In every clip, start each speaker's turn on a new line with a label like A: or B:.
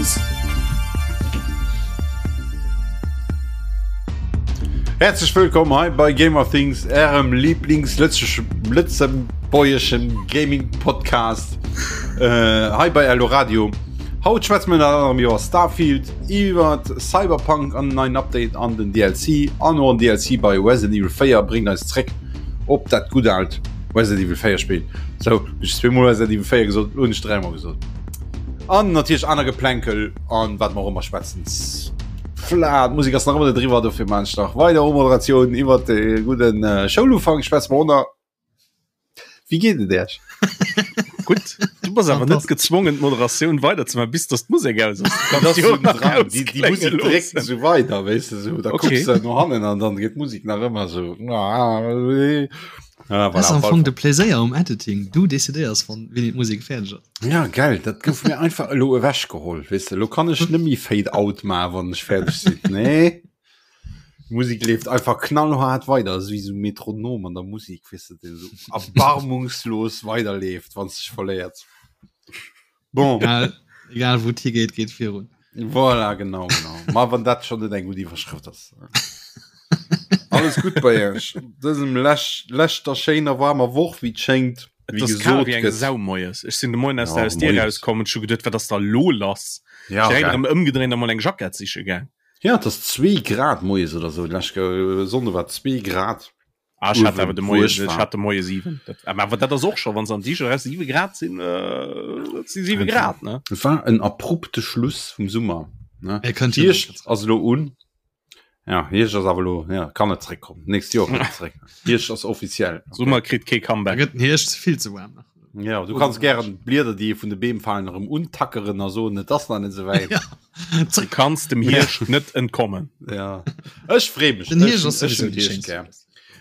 A: Things.
B: Herzlech wëllkomm hei bei Gamer Things, ärem Lieblings-lëtzebuergeschen Gaming Podcast äh, hei bei Eldoradio. Haut schwätze mir ënner anderem iwwer Starfield, iwwer Cyberpunk an neien Update an den DLC an och en DLC bei Resident Evil 4 bréngt eis zréck op dat gutt alt Resident Evil 4 Spill. Sou, hunn ech zweemol Resident Evil 4 gesot, lo hunn ech dräimol gesot. An natierlech aner Geplänkel an wat mer och ëmmer schwätzen. Fla, d'Musek ass nach ëmmer net eriwwer, dofir maan ech nach weider Umoderatioun iwwer de gudden Schoulufank schwätze mer och nach. Wéi geet et Iech?
C: Gutt, du bass awer net gezwongen d'Moderatioun weider ze maachen, bis dass d'Musek aus ass.
B: Du kanns jo nach dran. Déi, déi Musek dréckt esou weider, weess de, sou, da okay. kucks de no hannen an dann geet d'Musek nach ëmmer sou.
D: Ah, voilà, am Fong de Pläséier um Editing. Du decidéiers wann wéini d'Musek fäerdeg ass.
B: Ja, geil, dat gouf mir einfach elo ewechgeholl, weess de. Elo kann ech net méi Fade out maachen, wann ech fäerdeg sinn. Nee. Musik leeft einfach knallhart weider so wie so Metronom an der Musik wis du den so erbarmungslos weiterleeft wann sich verléiert.
D: Bon egal, egal wo hi geht geht virun.
B: Voilà, genau, genau. Ma wann dat schon net eng gut Iwwerschrëft ass. Alles gut bei Iech dësem lech leschter schéiner warmer Woch wéi et schéngt.
C: Et ass kal wéi eng Sau moies. Ech sinn de Moien aus der Haus Dier rauskomm und scho geduet, wat ass da lo lass? Ja, Direkt erëm ëmgedréint a mol eng Jackett siche gaang.
B: Ja, et ass zwee Grad moies oder sou. D'lescht Sonnde war zwee Grad.
C: Ah, ech hat awer de Moie, ech hat de Moie 7. Dat, awer dat ass och scho, wann se an Dicher eraus 7 Grad sinn, dat si 7 Grad, ne?
B: Et war en abrupte Schluss vum Summer, ne? Hierscht ass elo un. Ja, Hierscht ass awer elo, ja, kann net zréckkommen. D'nächst Joer kënnt et zréck. Hierscht ass offiziell.
C: Summer kritt kee Comeback.
D: Da gëtt den Hierscht vill ze waarm nach.
B: Ja, du kanns gären d'Blieder, déi vun de Beem falen, erëm untackeren a soen, et ass nach net esou wäit.
D: Ja.
C: Du kanns dem Hierscht net entkommen.
B: Ja. Ech free mech.
D: Den Hierscht ass
B: Ech
D: sowieso
B: hunn
D: déi
B: Hierscht
D: schéinst
B: gär.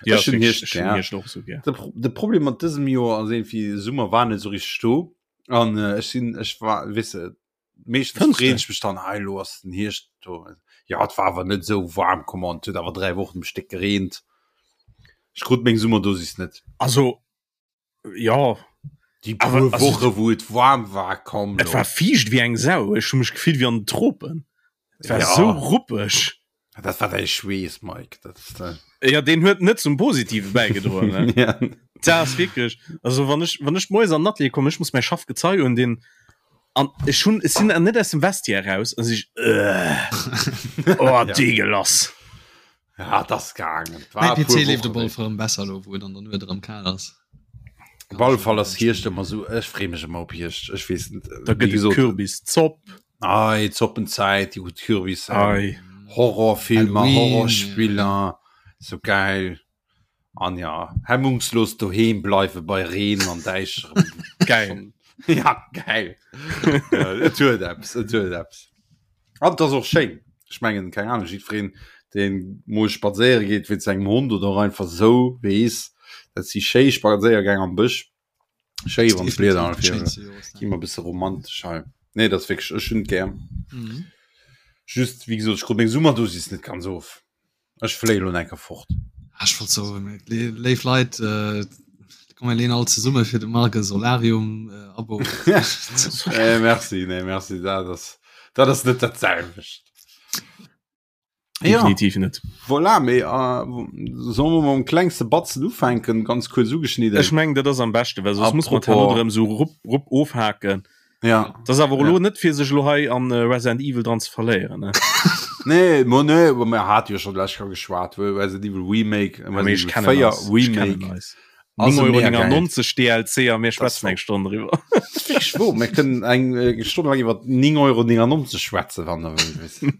C: Ja,
B: Ech hunn Hierscht
C: ech hunn
B: gär.
C: Hierscht och sou gär.
B: De, Pro de Problem mat dësem Joer ass irgendwie, Summer war net esou richteg do. An äh, ech sinn, ech war, weess de, meeschtens
C: Fënns de?
B: freen ech mech dann, hei elo ass den Hierscht do. Ja, et war awer net esou waarm, come on, et huet awer 3 Wochen um Stéck gereent. Ech krut meng Summerdosis net.
C: Also, ja
B: Déi puer Woche wou et waarm war komm
C: Et war fiicht wéi eng Sau. Ech hu mech gefillt wéi an den Tropen. Et war
B: ja.
C: sou ruppeg.
B: Dat war däi Schweess Mike. Dat ist,
C: äh... Ja deen huet net zum Positive bäigedroen. Ne?
B: ja.
C: Dat ass wierklech also wann ech wann ech moies an den Atelier kommen, ech muss mäi Schaffgezei un deen an ech hunn ech sinn net aus dem Vestiaire raus an si äh, oh,
B: ja.
C: deegelass.
B: Ja, das gaangen.
D: Mäi PC leeft op alle Fall erëm besser elo, wou et an der Nuet erëm kal ass.
B: Op alle Fall ass Hierscht ëmmer sou, ech free mech ëmmer op Hierscht. Ech weess net,
C: Da
B: wéi
C: gëtt et
B: gesot,
C: Kürbiszopp.
B: Ei, Zoppenzäit, déi gutt Kürbis,
C: Ei.
B: Horrorfilmer,
D: Halloween,
B: Horrorspiller, sou geil. An ja, hemmungslos doheem bleiwe bei Reen an Däischerem.
C: Geil.
B: Ja, geil. Et huet eppes, et huet eppes. An et ass och schéin. Ech mengen, keng Ahnung, jiddwereen, deen mol spadséiere geet wéinst sengem Hond oder och einfach esou, weess, dat si schéi Spadséiergäng am Bësch. Schéi, wann d'Blieder
D: Definitiv déi
B: an
D: schéinste Joreszäit.
B: Gi mer e bësse romantesch hei. Nee, dat ass wierklech, ech hunn et gär.
D: Mhm.
B: Just, wéi gesot, ech krut meng Summerdosis net ganz of. Ech fléie lo enker fort.
D: Ah, ech wollt soen, léif Leit, äh, komm mir leen all zesumme fir de Marc e Solarium äh, Abo.
B: nee, merci, nee, merci, dat ass, dat ass net dat selwecht.
C: Definitiv ja. net.
B: Voilà, mee äh, solle mer mam klengste Batzen ufänken, ganz kuerz ugeschnidden.
C: Ech meng, dat ass am beschte, well soss muss man
B: Apropos-
C: erëm so rupp, rupp ofhaken.
B: Ja.
C: Das ass awer elo
B: Ja.
C: net fir sech elo hei an äh, Resident Evil dran ze verléieren. Ne?
B: Nee, mo nee, aber mir hat jo schon lech geschwat, wou Resident Evil Remake,
C: Ja, mee
B: Resident
C: ech
B: Evil
C: kennen
B: 4
C: eis. Ech kennen
B: Remake.
C: eis.
B: Ass
C: 9,99
B: mega geil.
C: Euro DLC a mir schwätzen eng Stonn driwwer.
B: Fix wo, mir kënnen eng äh, Stonn lang iwwer 9,99 Euro schwätzen, wann der wëllt.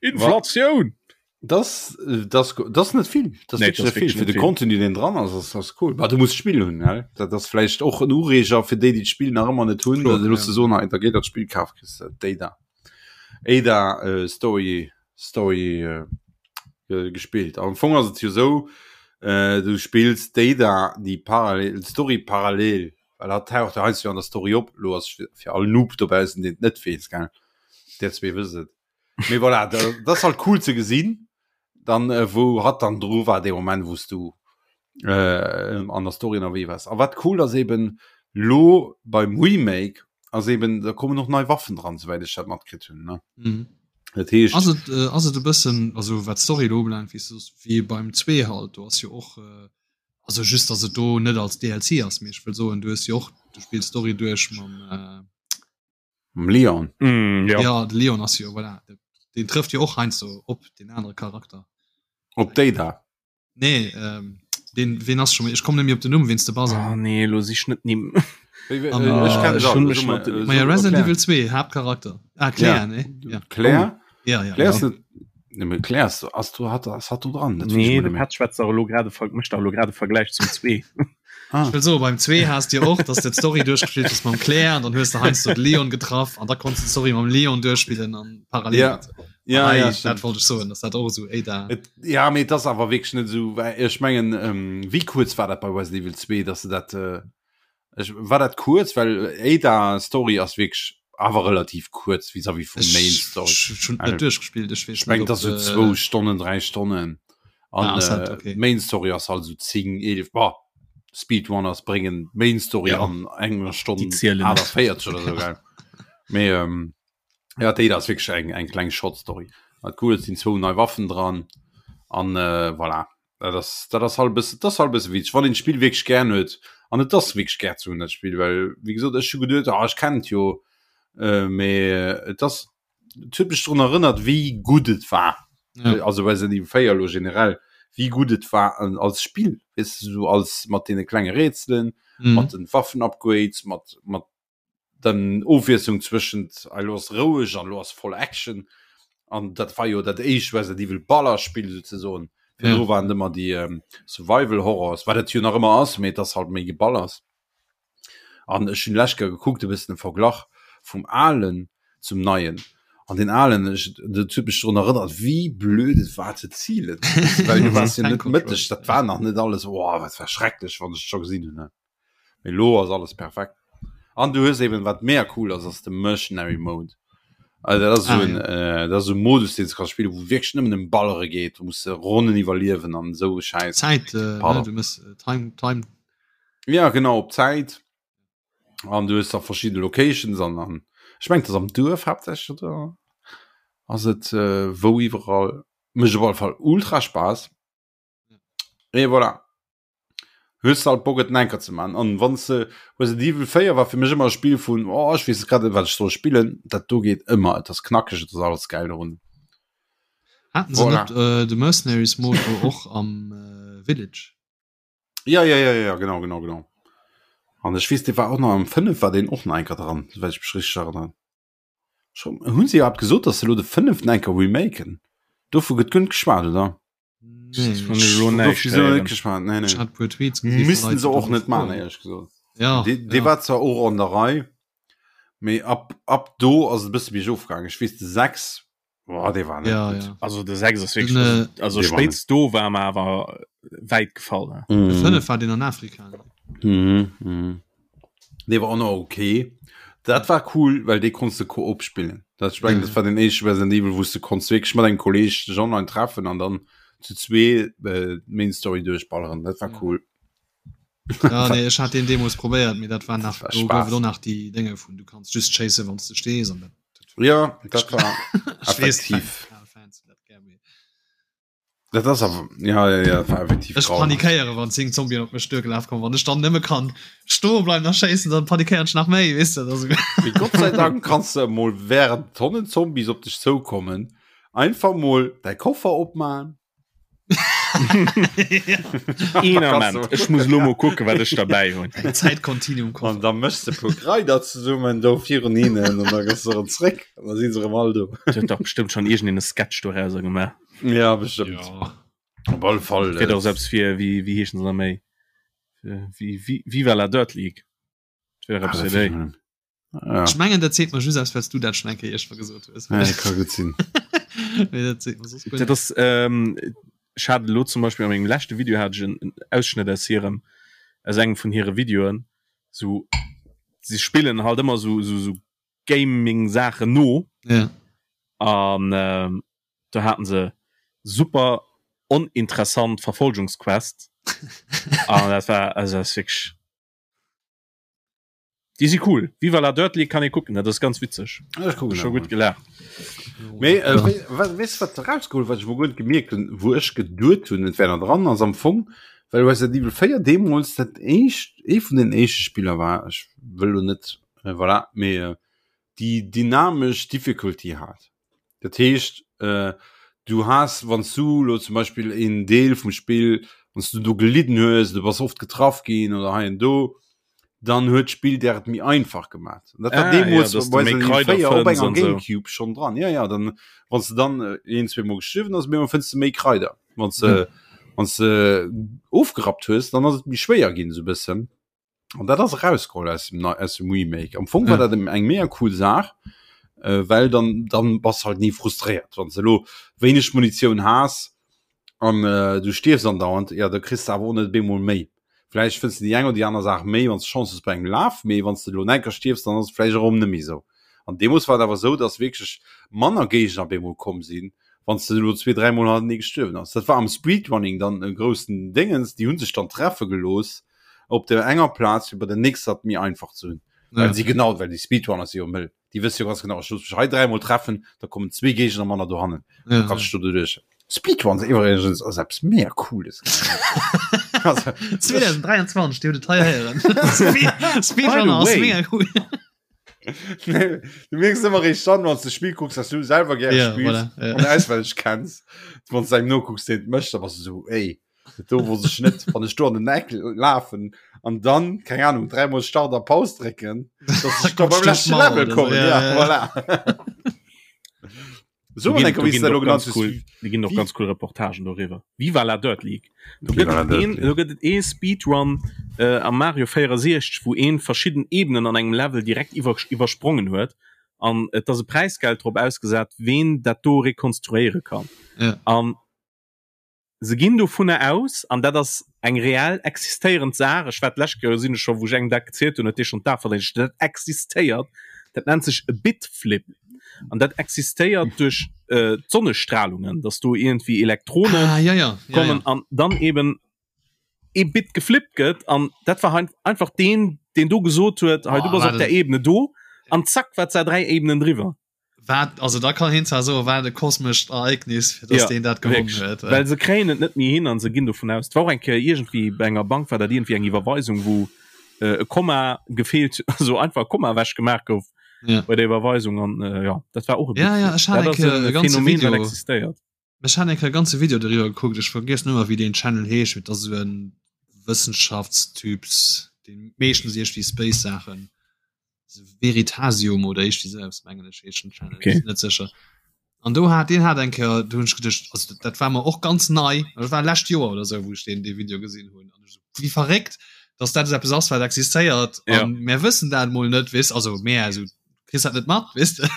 C: Inflatioun!
B: Das, das, das net vill das
C: Nee,
B: nee,
C: das
B: vill
C: net
B: fir de
C: vill.
B: Contenu den dran ass ass, ass cool. Bah, du muss Spiel hunn gell? Dat ass vläicht och en Ureeger fir déi déi d'Spill nach ëmmer net hunn,
D: Kloer,
B: da los
D: ja.
B: de soen, hei, da geet dat Spill kaf kriss de d'Ada Ada äh, Story Story äh, äh, gespillt. Am Fong ass et jo sou äh, du spills d'Ada déi parallel d'Story parallel well hat taucht jo heiansdo an der Story op, lo ass fir fir all Noob dobaussen deen et net weess gell, där zwee wësst et. Mee voilà, da, das ist halt cool ze gesinn, dann äh, wou hat dann dru war de Moment wous du äh, an der Story ënnerwee wars. A wat cool ass eben lo beim Remake. ass eben da kommen och nei Waffen dran, souwäit ech dat matkritt hunn ne. Mhm. Dat heescht
D: Ass et äh, ass et e bëssen also wat d'Story elo ubelaangt, wéi s du soos, wéi beim 2 halt, do ass jo och äh, also just datt et do net als DLC ass, mee ech wëll soen, du hues jo och, du spills d'Story duerch mam äh,
B: Mam Leon.
C: Mm, ja.
D: ja de Leon ass jo voilà, den trëfft jo och heiansdo op den anere Charakter.
B: Op déi da.
D: Nee, ähm, den wen ass schon ech komme net méi op den Numm wéinst de Buzzer.
C: Ah, nee, lo sich net nimm.
B: Wéi, wéi,
D: An,
B: äh, ech kenn
C: äh,
B: se
C: schon
B: all.
C: mech
B: So mal,
C: mat-
B: äh,
D: Ma ja
B: so
D: Resident
B: erklär.
D: Evil 2 Haaptcharakter. Ah Claire,
B: Ja.
D: nee? Ja.
B: Claire?
D: Ja, ja.
B: Claire ass net. Nee, mee Claire ass, ass du hat ass hat du dran. Dat weess
C: Nee,
B: ech
C: de
B: mol net méi.
C: Pat schwätzt dach elo grade ver mécht dach elo grad e Vergläich zum 2.
B: Ah.
D: Ech wëll soen, beim 2 has de jo och, dass de d'Story duerchgespillt hues mam Claire an dann hues de heiansdo de Leon getraff an da konns de d'Story mam Leon duerchspillen an parallel.
B: Ja. Ja,
D: An hei,
B: ja,
D: dat
B: stimmt.
D: wollt ech soen, dass dat och esou Ada.
B: Et, ja, mee et ass awer wierklech net esou, well ech mengen, ähm, wéi kuerz war dat bei Resident Evil 2, dass se dat, äh, ech, war dat kuerz, well Ada Story ass wierklech awer relativ kuerz vis-à-vis vum Main
D: Ech
B: Story.
D: ech hunn et
B: Also,
D: net duerchgespillt, ech weess
B: ech mengen,
D: net,
B: et ass
D: ob,
B: esou zwou
D: äh,
B: Stonnen, dräi Stonnen. An
D: Ah, ass dat,
B: äh,
D: okay.
B: d'Main Story ass halt esou 10, 11, bah, Speedrunners bréngen d'Main Story
D: Ja.
B: an enger
C: Déi
B: Stonn
C: zielen net.
B: 48 oder sou, gell. Mee, ähm, Ja déi ass wierklech eng eng kleng Short Story. Wat cool et sinn zwou nei Waffen dran an äh, voilà. Dat ass dat ass halt bësse dat ass halt bësse witzeg, wann een d'Spill wierklech gär huet an et ass wierklech gär ze hunn dat Spill, well wéi gesot ech hu geduet ah ech kennen et jo äh, mee et ass et huet mech drun erënnert wéi gutt et war.
D: Ja.
B: Also Resident Evil 4 elo generell wéi gutt et war an als Spill weess de sou als mat deene klenge Rätselen,
D: Mhm.
B: mat den Waffen-Upgrades, mat mat dann Ofwiesslung zwëschent hei lo ass roueg an lo ass voll Action an dat war jo dat éischt Resident Evil Ballerspill souzesoen. Virdru
D: Ja.
B: waren ëmmer déi ähm, Survival Horrors, wat et jo nach ëmmer ass, mee et ass halt méi Geballers. An ech hunn lech gekuckt e bëssen e Verglach vum alen zum neien. An den alen ech dat huet mech drun erënnert wéi blöd et war ze zielen, well du waars jo
D: Tank
B: net
D: Control.
B: mëtteg, dat war nach net alles, oh wat war schrecklech wann ech et scho gesinn hunn ne. Mee lo ass alles perfekt. An du hues eben wat mega cool ass, ass de Mercenary Mode. Also dat ass so
D: Ah,
B: en
D: ja.
B: äh, dat ass so e Modus deen s du kanns spillen, wou wierklech nëmmen ëm Ballere geet, du muss Ronnen iwwerliewen an esou e Schäiss.
D: Zäit, äh, ne,
B: Pardon.
D: du mëss äh, Time, Time.
B: Ja genau op Zäit an du hues da verschidde Locations an an ech mengen et ass am Duerf haaptsächlech oder ass et äh, wou iwwerall. Mécht op alle Fall ultra Spaass. Et voilà. Hues halt Bock et enker ze man an wann se Resident Evil 4 war fir mech ëmmer e Spill vun oh ech weess grad net wat ech soll spillen dat do geet ëmmer et ass knackeg et ass alles geil dorun.
D: Haten se
B: Voilà.
D: net äh, de Mercenaries Mode do och am äh, Village?
B: Ja ja ja ja genau genau genau an ech weess dee war och nach am 5 war deen och nach enker dran souwäit ech mech richteg erënneren. Schon hunn se iwwerhaapt gesot dass se elo de fënneften enker remaken? Dovu gëtt guer net geschwat oder? Missten se och net man éierlech gesot.
D: Ja,
B: Dee
D: ja.
B: war zwar och an der Rei, mee ab, ab do ass et e bësse biergof gaangen. Ech weess de 6, boah, dee war net
D: Ja,
B: gutt.
D: ja.
C: Also de 6 ass wierklech,
D: Den,
C: also,
D: äh,
C: also
B: Dee war
C: spéitst do war mer awer wäit gefall. Ne?
D: De
B: Mhm.
D: 5 war deen an Afrika. Ne?
B: Mhm, mhm. Dee war och nach okay. Dat war cool, well dee konns de Koop spillen. Dat ech mengen,
D: Ja,
B: dat war den éischte Resident Evil, wou s de konns wierklech mat engem Kolleeg dech online treffen an dann zu zwee äh, d'Main Story duerchballeren. Dat war
D: Ja.
B: cool.
D: Ja, nee, ech hat den deemools probéiert, mee dat war nach,
B: war
D: do gouf
B: Spaß.
D: et och nach déi Dénge vun du kanns just schéisse wann s de stees an dat, dat
B: Ja, dat war
D: Ech weess,
B: effektiv.
D: Fan, Fans hunn dat gär, mee
B: Dat ass awer ja, ja, ja, war effektiv
D: Ech
B: grauenhaft.
D: panikéiere wann 10 Zombien op mech duergelaf kommen. Wann ech dann nëmme kann stoe bleiwen a schéissen, dann panikéieren ech nach méi, weess de. Also,
B: Mee Gott sei Dank kanns de emol während Tonnen Zombies op dech zoukommen einfach mol däi Koffer opmaen.
C: Een Ament, ech muss lo mol kucken, wat ech derbäi hunn.
D: Eng Zäitkontinuum
B: An da méchs de puer Kraider zesummen do virun hinnen an da gëss de erëm zréck an da si se erëm all do.
C: Et huet dach bestëmmt schonn iergendeen e Sketch dorauser gemaach.
B: Ja bestimmt.
D: Ja.
B: Op alle Fall.
C: Fir doch selbst fir wie wie heeschen se méi wie wie Viva la Dirt League
B: Ah,
C: fir déi.
B: Ja.
D: Ech mengen dat seet mer just aus, well s du dat schon eng Kéier iergendwa gesot hues.
B: Ja, ka gutt sinn.
D: Mee dat seet mer soss guer
C: Dat
D: net.
C: ass ähm, ech hat elo zum Beispill a mengem leschte Video hat ech en en Ausschnëtt aus hirem aus engem vun hire Videoen sou si spillen halt ëmmer sou sou sou Gaming Saachen no
D: Ja.
C: an ähm, do haten se super oninteressant Verfolgungsquest an dat war also dat ass wierklech. Déi si cool. Viva la Dirt League kann ee kucken, dat ass ganz witzeg.
B: Ech kucken
C: Scho
B: dat
C: gutt
B: mol.
C: gelaacht.
B: Mee äh, wéi- wa- weess du, wat erausgeholl, wat ech mol guer net gemierkt hunn, wou ech geduet hunn, et wär nach dran, ass am Fong, well Resident Evil 4 deemools dat éischt, ee vun den éischte Spiller war, ech wëll lo net, äh, voilà, mee äh, déi dynamesch Difficulty hat. Dat heescht äh, du has wann du lo zum Beispiel een Deel vum Spill wann du do gelidden hues, du bass oft getraff ginn oder hei an do, dann huet d'Spill der et méi einfach gemaat. Dat war
C: Ah,
B: deemools
C: ja, dass du
B: bei
C: méi
B: Resident Evil
C: Kraider
B: 4 op
C: fënns
B: enger
C: an sou.
B: Gamecube schon dran. Ja ja, dann wann du dann äh, een zwee Mol gestuerwen ass, méi fënns du méi Kraider. Wann du
D: Ja.
B: wann du ofgerappt hues, dann ass et méi schwéier ginn sou bëssen. An dat ass erausgeholl aus dem, aus dem Remake. Am Fong war
D: Ja.
B: dat eng mega cool Saach, äh, well dann, dann bass halt nie frustréiert. Wann du lo wéineg Munitioun has an äh, du stierfs andauernd, ja, da kriss du awer och net bemol méi. Vläicht fënns du déi eng oder déi aner Saach méi, wann du Chance hues bei engem Laf, mee wann du lo enker stierfs, dann ass et vläicht erëm net méi esou. An deemools war et awer esou, dass wierklech manner Géigner bemol komm sinn, wann du lo zwee, dräimol hannertenee gestuerwen ass. Dat war am Speedrunning dann e groussen Déngens, déi hu sech dann treffe gelooss op der enger Plaz fir bei der nächster et méi einfach ze hunn.
D: Ja.
B: Well si genau, well déi Speedrunner si jo mëll. Déi wësse jo ganz genau, ech looss mech hei dräimol treffen, da kommen zwee Géigner manner dohannen.
D: Ja,
B: Da kannst du doduerch. Speedruns iwwregens ass eppes mega cooles. Also,
D: 2023, déi huet et hei héieren. Speed- Speedrunner ass
C: way.
D: mega cool.
B: Nee, du merkst immer recht dann, wann du Spiel guckst, dass du selber gerne
D: Ja,
B: spielst
D: voilà, ja.
B: und auswendig kennst. Wann du einem noguckst, den möchte, da bist du so, ey, do wo sech net, wann ich do an den Eck laufen an dann, keine Ahnung, dreimal Start a Paus drücken, dass ich da beim letzten Level komme.
D: Ja,
B: Ja,
D: ja.
B: voilà. So,
C: Do ginn-
B: enker,
C: do
B: wie
C: ginn
B: du
C: och
B: lo
C: ganz
B: genannt
C: cool,
B: hues.
C: do ginn och
B: Wie-
C: ganz cool Reportagen doriwwer. Viva la Dirt League. Do
B: Viva
C: gëtt
B: la
C: et
B: Dirt
C: een,
B: League.
C: do gëtt et ee Speedrun äh, am Mario 64, wou een verschidden Ebenen an engem Level direkt iwwer, iwwersprongen huet. An et ass e Präisgeld drop ausgesat, ween dat do rekonstruéiere kann.
D: Ja.
C: An Se ginn dovunner aus, an dat ass eng reell existéierend Saach, ech war d'lescht Kéier, sinn ech scho, wou ech engem dat gezielt hunn, huet dee schonn d'A verdéngt, dat existéiert, dat nennt sech e Bitflip an dat existéiert duerch d'Sonnestralungen, dass do iergendwéi Elektronen
D: Ah, ja, ja, ja,
C: kommen
D: ja.
C: an dann eben ee Bit geflippt gëtt an dat war einfach deen, deen do gesot huet, hei du
D: Oh,
C: bass op
D: wat
C: der
D: en
C: Ebene do an zack war d'Saach 3 Ebenen driwwer.
D: Wat, also da kann hien zwar soen, wat e kosmescht Ereignis, fir dass
C: Ja,
D: deen dat gewonnen
C: wierklech.
D: huet.
C: Well se kréien et net méi hin an se ginn dovun aus. Et war och eng Kéier iergendwéi bei enger Bank war dat iergendwéi eng Iwwerweisung, wou äh, e Komma gefeelt, also einfach e Komma ewech gemaach gouf
D: Ja.
C: bei der Iwwerweisung an äh, ja, dat war och e
D: Ja, ja, ech hat
C: Dat
D: eng
C: ass
D: Kéier
C: e
D: e ganze
C: Phänomen, wat
D: Video.
C: existéiert.
D: Ech hat eng Kéier e ganze Video doriwwer gekuckt, ech vergiess nëmmer wéi deen Channel heescht, mee et ass esou en Wëssenschaftstyps, deen meeschtens iergendwéi Space-Saachen Veritasium oder iergendwéi sou eppes mengen ech heescht den Channel,
C: Okay.
D: sinn net sécher. An do hat deen hat eng Kéier, do hunn ech geduecht, also dat, dat war mer och ganz nei, dat war lescht Joer oder sou, wou ech deen dee Video gesinn hunn an ech sou, wéi verréckt, dass dat esou eppes ass, wat existéiert
C: Ja.
D: an mär wëssen dat mol net, weess, also mär, also kriss dat net mat, weess de.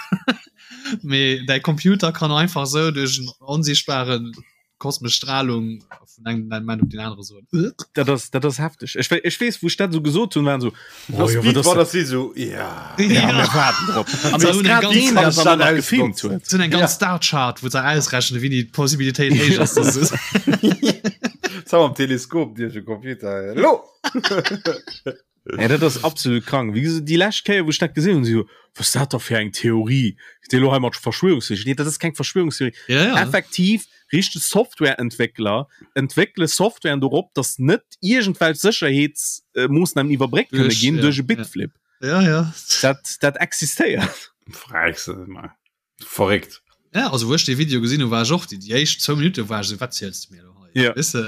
D: Mee däi Computer kann einfach sou duerch en onsichtbaren kosmesch Strahlung vun engem Moment op den anere soen.
C: Dat ass, dat ass hefteg. Ech, ech weess, wou ech dat sou gesot hunn, waren so, oh,
B: Das
C: jo,
B: Beat
C: wat ass
B: war
C: dat?
B: das si so ja.
C: Ja,
D: Ja.
C: mir waarden drop. An
D: Se
C: dat
D: hunn eng
C: grad
D: ganz-
C: deen,
B: kann
C: dat
B: ich
C: dann
B: dann
C: nach gefilmt
B: ausnutzen.
C: huet.
D: Sinn eng ganz Star-Chart, wou se ausrechnen, wéi déi Possibilitéit héich ass, dass es
B: Zau am Teleskop Dir de Computer. Lo!
C: Ja, dat ass absolut krank. Wéi gesot, déi lescht Kéier, wou ech dat gesinn hunn, si so, was ist dat da fir eng Theorie? Déi lo hei mat Verschwörungstheorie. Nee, dat ass keng Verschwörungstheorie.
D: Ja, ja.
C: Effektiv, richteg Softwareentwéckler entwéckele Softwaren dorop, dass net iergendwelch Sécherheetsmoossnamen iwwerbréckt kënne
D: Duerch,
C: ginn
D: ja,
C: duerch e
D: ja.
C: Bitflip.
D: Ja, ja.
C: Dat, dat existéiert.
B: Fräis, ma. Verréckt.
D: Ja, also wou ech dee Video gesinn hu war ech och déi déi éischt zwou Minutte war ech esou wat ziels de mir elo hei?
C: Ja.
D: Weess de?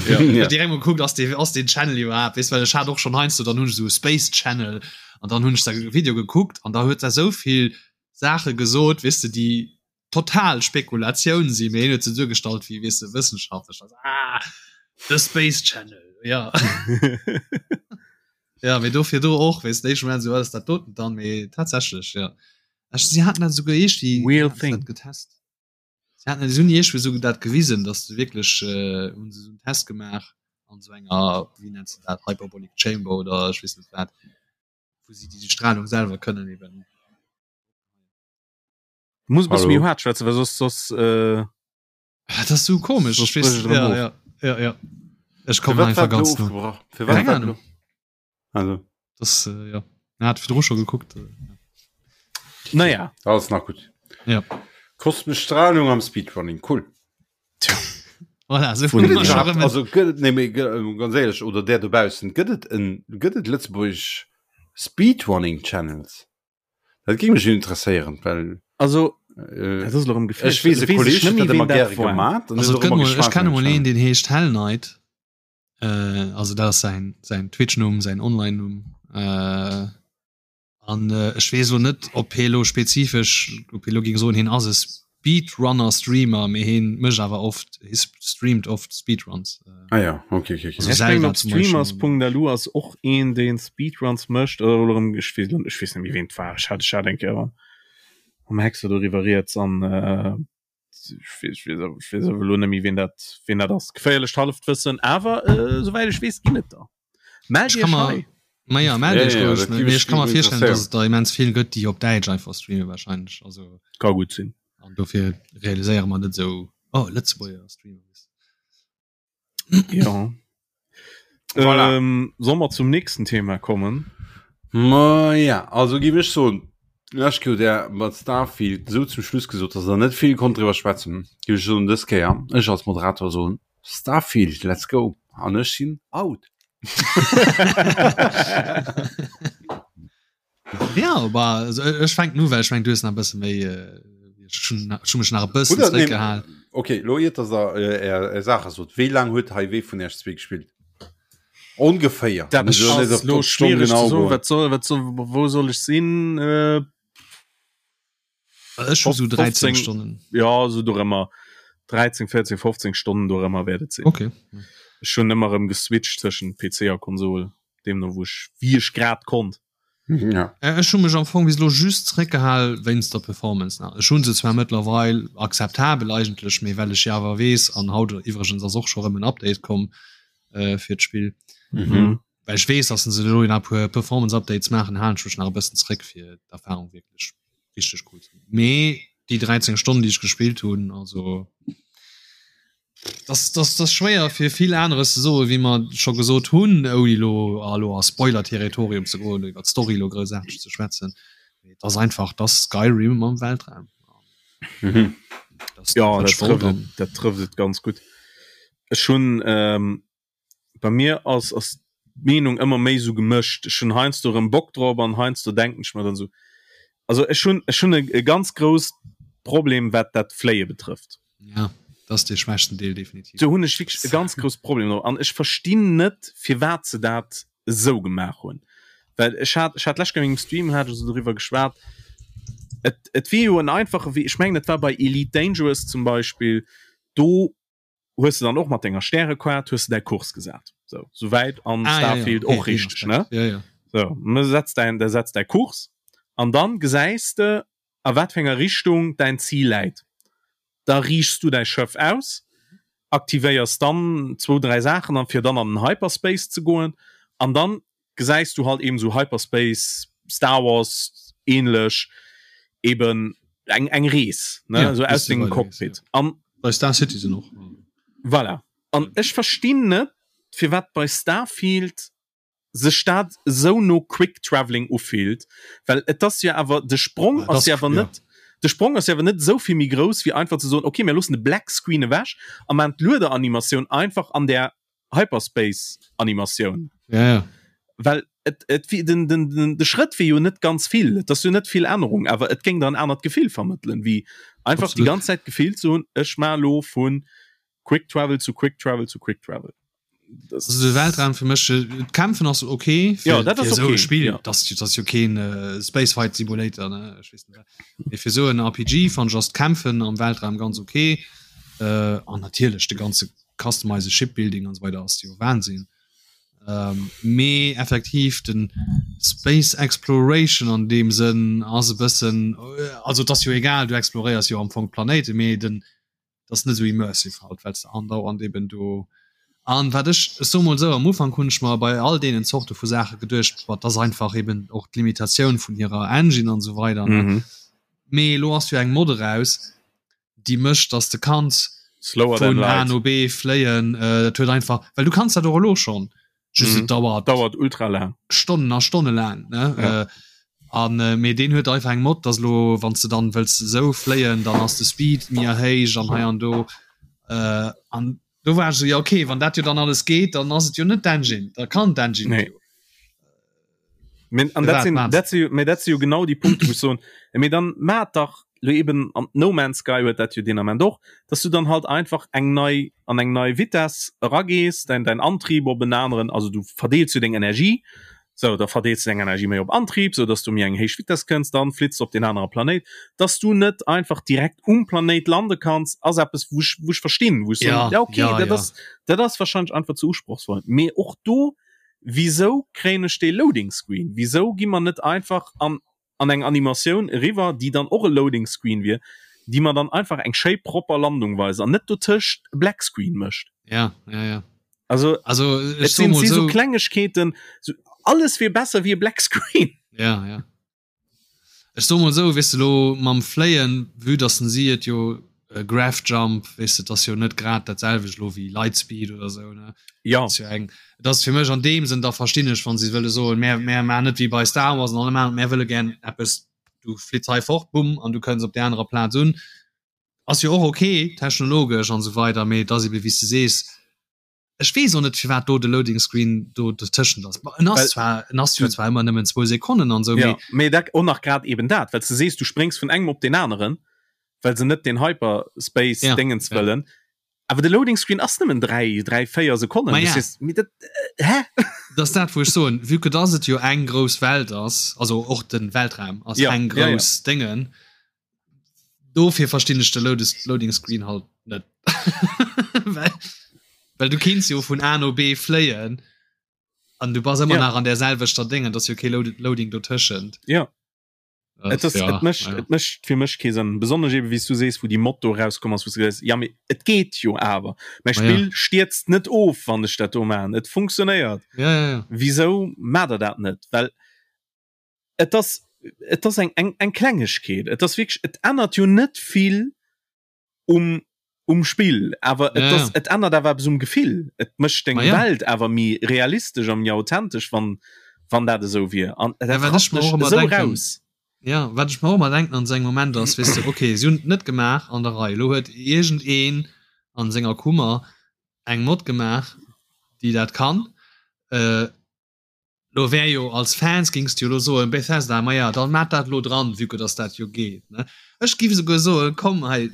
C: Ja.
B: Ja.
D: Direkt mol gekuckt ass dee ass deen Channel iwwerhaapt weess well ech hat och schonn heiansdo dann hunn ech esou Space Channel an dann hunn ech säi Video gekuckt an da huet der esou vill Saache gesot weess de déi total Spekulatioun sinn, mee hien huet se duergestallt wéi weess de wëssenschaftlech also ah the Space Channel ja. Ja mee dofir do och weess de éischte Moment esou wat ass dat doten dann mee tatsächlech ja. Ech si haten dat souguer iergdwi
C: Real
D: haten se
C: thing.
D: dat getest. Si haten si hunn iergdwi souguer dat gewisen, datt se wierklech äh, hunn se esou en Test gemaach an esou enger, wéi nennt se dat, Hyperbolic Chamber oder ech weess net wat, wou si déi Strahlung selwer kënnen eben.
C: Du muss e bësse méi
B: Hallo.
C: haart schwätzen, well soss, soss, äh,
D: Ah, dat ass sou komesch.
C: Soss
D: Ech weess,
C: brécht et erëm
D: ja,
C: of.
D: ja, ja, ja. Ech
B: Fir
D: kommen
B: wat
D: einfach
B: war
D: ganz
B: elo
D: no.
B: ofgebrach? Fir wat
D: Keng
B: war
D: Ahnung.
B: elo? Also.
D: Das, äh, ja. Hat virdru scho gekuckt.
C: Naja.
B: Alles nach gutt.
D: Ja.
B: Kosmesch Strahlung am Speedrunning, cool.
D: Tja. Voilà, so
B: Gëtt et iwwerhaapt, also gëtt et, nee, mee ganz éierlech, oder där dobaussen, gëtt et en, gëtt et lëtzebuergesch Speedrunning Channels? Dat géing mech interesséieren, well
C: Also,
B: äh,
C: dat ass elo erëm geféierlech.
B: ech weess, e
C: Weess ech
B: Kolleg
C: net
B: huet
C: méi,
B: dat ëmmer
C: ween dat
B: gäre
C: war.
B: gemat an
D: Also
B: huet
D: et
B: och
D: gëtt
B: ëmmer
D: mol, ech
B: geschwat
D: kenne
B: vun
D: mol
B: dem
D: een, deen heescht Hell Knight. Äh, also dat ass säin, säin Twitch-Numm, säin Online-Numm. Äh, an äh, ech weess lo net, ob hie lo spezifesch, ob hie lo géing soen, hien ass e Speedrunner-Streamer, mee hien mécht awer oft, hie streamt oft Speedruns. Äh,
B: Ah ja, okay, okay, okay.
D: Also
C: Ech
D: Zelda
C: mengen op
D: zum Beispiel.
C: streamers.lu ass och een deen Speedruns mécht oder elo erëm ech weess ech weess net méi ween et war ech hat ech hat eng Kéier mam Hexer doriwwer rieds an äh, ech weess ech weess ech weess awer elo net méi ween dat ween dat ass. Geféierlecht Hallefwëssen awer äh, souwäit ech weess ginn et der. Mellt
D: Ech
C: iech
D: kann mer
C: hei!
D: Ma ja, mellt
B: Ja,
D: iech
B: ja,
D: roueg,
B: dat
D: mee
B: géif mech
D: ech ka mer virstellen,
B: interesséieren.
D: dass et der immens vill gëtt, déi op Däitsch einfach streamen wahrscheinlech. Also
C: Ka gutt sinn.
D: an dofir realiséiere mer net esou, oh Lëtzebuerger Streamer.
C: Ja.
B: Voilà.
C: Ähm, soll mer zum nächsten Thema kommen?
B: Ma ja, also géif ech soen, lech Kéier hutt Der mat Starfield esou zum Schluss gesot, dass Der net vill konnt driwwer schwätzen. Géif ech soen, dës Kéier, ech als Moderator soen, Starfield, let's go! An ech sinn out.
D: Ja, aber also, ech fänken u, well ech meng, du hues nach e bësse méi, äh, ech hunn ech hunn mech nach e bëssen
B: Oder, nee,
D: zréckgehal.
B: okay, lo iert dass der äh, är, är Saache sot, wéi laang huet hei wee vun iech zwee gespillt? Ongeféier.
C: Dat
B: Mir sollen net
C: ass
B: op
C: lo
B: op d'Stonn
C: schwiereg ze
B: genau
C: soen.
B: goen.
C: Wat soll, wat soll, wou soll ech sinn? Äh,
D: Ech hu sou 13
C: 15
D: Stonnen.
C: ja, sou dorëmmer. 13, 14, 15 Stonnen dorëmmer wäert et sinn.
D: Okay.
C: Ech hunn ëmmer erëm geswitcht tëschent PC a Konsol, deemno wou ech, wéi ech grad konnt.
B: Ja.
D: Äh, Ech hu mech am Fong bis elo just zréckgehal wéinst der Performance nach. Ech hu se zwar mëttlerweil akzeptabel eigentlech, mee well ech jo awer weess, an haut iwwregens ass och scho rëm en Update komm äh, fir d'Spill,
B: Mhm.
D: well ech weess, dass se elo nach e puer Performance Updates maachen, halen ech mech nach e bëssen zréck fir d'Erfahrung wierklech richteg cool ze Mee déi 13 Stonnen, déi ech gespillt hunn, also das, das, das schwéier fir vill aneres ze soe wéi mer scho gesot hunn, ouni lo elo a Spoiler-Territorium ze goen, iwwer d'Story lo groussaarteg ze schwätzen. Mee et ass einfach, et ass Skyrim am Weltraum.
B: Mhm.
D: Das,
C: Ja,
D: dat
C: dat
D: ech wollt
C: trëfft et,
D: an
C: dat trëfft et ganz gutt. Ech hunn ähm, bei mir ass ass d'Meenung ëmmer méi sou gemëscht. Ech hunn heiansdo erëm Bock drop an heiansdo denken ech mer dann sou, also ech hunn ech hunn e, e ganz grousst Problem wat dat Fléie betrëfft.
D: Ja, dat ass dee schwächsten Deel definitiv.
C: Do hunn ech wierklech e ganz grousst Problem drop an ech verstinn net firwat se dat esou gemaach hunn. Well ech hat ech hat d'lescht Kéier an mengem Stream hat ech esou doriwwer geschwat, et et wier jo en einfache Wee, ech mengen et war bei Elite Dangerous zum Beispill, do hues de dann och mat denger Stärequart hues de däi Kurs gesat. So, souwäit an
D: ah,
C: Starfield
D: ja, ja.
C: och
D: okay,
C: richteg, ne?
D: Ja, ja.
C: So, du setz däin, der setz däi Kurs an dann gesäis de a wat fir enger Richtung däin Zil läit. Da riichs du däi Schëff aus, aktivéiers dann zwou, dräi Saachen an fir dann an den Hyperspace ze goen an dann gesäis du halt eben sou Hyperspace, Star Wars ähnlech eben eng eng Rees ne
D: ja,
C: sou aus dengem Cockpit
D: ja.
C: an
D: bei Star Citizen och
C: voilà an ech verstinn net firwat bei Starfield sech dat sou no Quick Travelling ufillt well et ass jo awer de Sprong
D: ja,
C: ass jo awer
D: ja.
C: net de Sprong ass jo awer net sou vill méi grouss wéi einfach ze soen okay mir loossen de Black Screen ewech a maan d'Luederanimatioun einfach an der Hyperspace Animatioun.
D: Ja, ja.
C: Well et, et, den, den, den, de Schrëtt wier jo net ganz vill, et ass jo net vill Ännerung, awer et géing der en anert Gefill vermëttelen, wéi einfach
D: Absolut.
C: déi ganz Zäit d'Gefill ze hunn, ech maa lo vu Quick Travel zu Quick Travel zu Quick Travel.
D: Das also de Weltraum fir mech äh, d'Kämpfen ass okay
C: fir, ja, dat ass
D: okay.
C: okay.
D: Spiel
C: ja.
D: das, das ass jo keen äh, Space Fight Simulator ne ech weess net. Mee fir sou en RPG fand ech ass d'Kämpfen am Weltraum ganz okay äh, an natierlech de ganze Customize Shipbuilding an so weider ass jo Wahnsinn. Ähm, mee effektiv den Space Exploration an dem Sënn ass e bëssen äh, also et ass jo egal, du exploréiers jo am Fong d'Planéite, mee den dat ass net esou immersive halt, well s de andauernd eben do an wat ech ech soe mol esou, am Ufank hunn ech mer bei all deenen Zorte vu Saache geduecht, boah, dat ass einfach eben och d'Limitatioun vun hirer Engine an esou weider ne.
C: Mhm.
D: Mee elo ass jo eng Mod eraus, déi mécht, dass de kanns
C: Slower than
D: vun A
C: light.
D: no B fléien. Äh, dat huet einfach, well du kanns dat och elo schonn. Just
C: mhm.
D: et dauert
C: dauert ultra lang
D: Stonnen a Stonne lang ne ja. äh, an äh, mee den huet einfach eng Mod dass lo wann du dann wëlls sou fléien dann ass de Speed mir héich an hei an do äh, an do war so ja okay wann dat jo dann alles geht dann ass et jo net d'Engine da kann d'Engine
C: nee. An dat sinn, dat sinn, mee dat si jo genau déi Punkte wou ech soen, mee dann maat dach lo eben an No Man's Sky huet dat jo deen Ament och, dass du dann halt einfach eng nei an eng nei Vitess eragees, däin däin Antrieb op en aneren, also du verdeels jo deng Energie, sou da verdeels du deng Energie méi op Antrieb, sou dass du méi eng héich Vitess kënns, dann flitts du op deen anere Planéit. Dass du net einfach direkt um Planéit lande kanns, ass eppes wou ech wou ech verstinn, wou ech soen,
D: Ja,
C: ja okay,
D: ja,
C: dat
D: ja.
C: ass dat ass wahrscheinlech einfach ze usprochsvoll, mee och do Wisou kréien ech dee Loading Screen? Wisou gi mer net einfach an an eng Animatioun eriwwer, déi dann och e Loading Screen wier, déi mer dann einfach eng schéi propper Landung weist an net dotëscht e Black Screen mécht?
D: Ja, ja, ja.
C: Also,
D: also
C: et
D: ech so
C: sinn
D: mol
C: si sou
D: sou.
C: Klengegkeeten, sou alles wier besser wéi e Black Screen.
D: Ja, ja. Ech soe mol esou, weess de lo mam Fléien, vue dass den si et jo Grav Jump, weess de, et ass jo net grad dat selwecht lo wéi Lightspeed oder esou, ne?
C: Ja.
D: Ass jo eng, et ass fir mech an deem Sënn, da verstinn ech, wann si wëlle soen, mär, mär maachen net wéi bei Star Wars an allem aneren, mär wëlle gär eppes, du flitts hei fort, bumm, an du kënns op där anerer Plaz un. Ass jo och ok, technologesch an esou weider, mee et ass ebe wéi s de sees, Ech weess och net firwat do de Loading Screen do dotëschent ass. En ass zwar en ass jo zwar ëmmer nëmmen zwou Sekonnen an esou,
C: mee. Ja, mee dat och nach grad eben dat, well s de sees, du spréngs vun engem op deen aneren, well se net deen Hyperspace
D: Ja,
C: Déngens
D: ja.
C: wëllen. Awer de Loading Screen ass nëmmen 3, 3, 4 Sekonnen.
D: Ma
C: Du
D: ja.
C: sees, mee dat, hä?
D: Dat ass dat wou ech soen, vue que dass et jo eng grouss Welt ass, also och den Weltraum ass
C: Ja,
D: eng
C: ja, ja.
D: grouss Déngen, Dofir verstinn ech de Loading Screen halt net. well, well du kinns jo vun A no B fléien an du bass ëmmer
C: ja.
D: nach an der selwechter Déngen, dass jo kee Loading dotëschent.
C: Ja. Et ass, ja, et mécht, ja. et mécht fir mech kee Sënn. Besonnesch eben, wéi s du sees, wou déi Mod do rauskomm ass, wou s du gesäis, ja mee et geet jo awer. Mäi Spill
D: ja.
C: stierzt net of, wann ech dat do maachen. Et funktionéiert.
D: Ja, ja, ja.
C: Wisou maacht der dat net? Well et ass et ass eng eng eng Klengegkeet. Et ass wierklech et ännert jo net vill um um Spill, awer et
D: Ja,
C: ass
D: ja.
C: et ännert awer eppes um Gefill. Et mécht deng
D: Ma ja.
C: Welt awer méi realistesch a méi authentesch, wann wann dat esou wier. An
D: Ja,
C: dat
D: wat ech
C: rappt
D: mer
C: mech
D: och ëmmer
C: esou
D: denken,
C: raus.
D: ja, wat ech mer och ëmmer denken an esou engem Moment ass, weess de, okay, si hunn et net gemaach an der Rei. Elo huet iergendeen an senger Kummer eng Mod gemaach, déi dat kann. Äh, Lo wär jo als Fans gings de jo lo soen, Bethesda, ma ja, dann maat dat lo dran, vue que dass dat jo geet, ne? Ech giff esouguer soen, komm hei,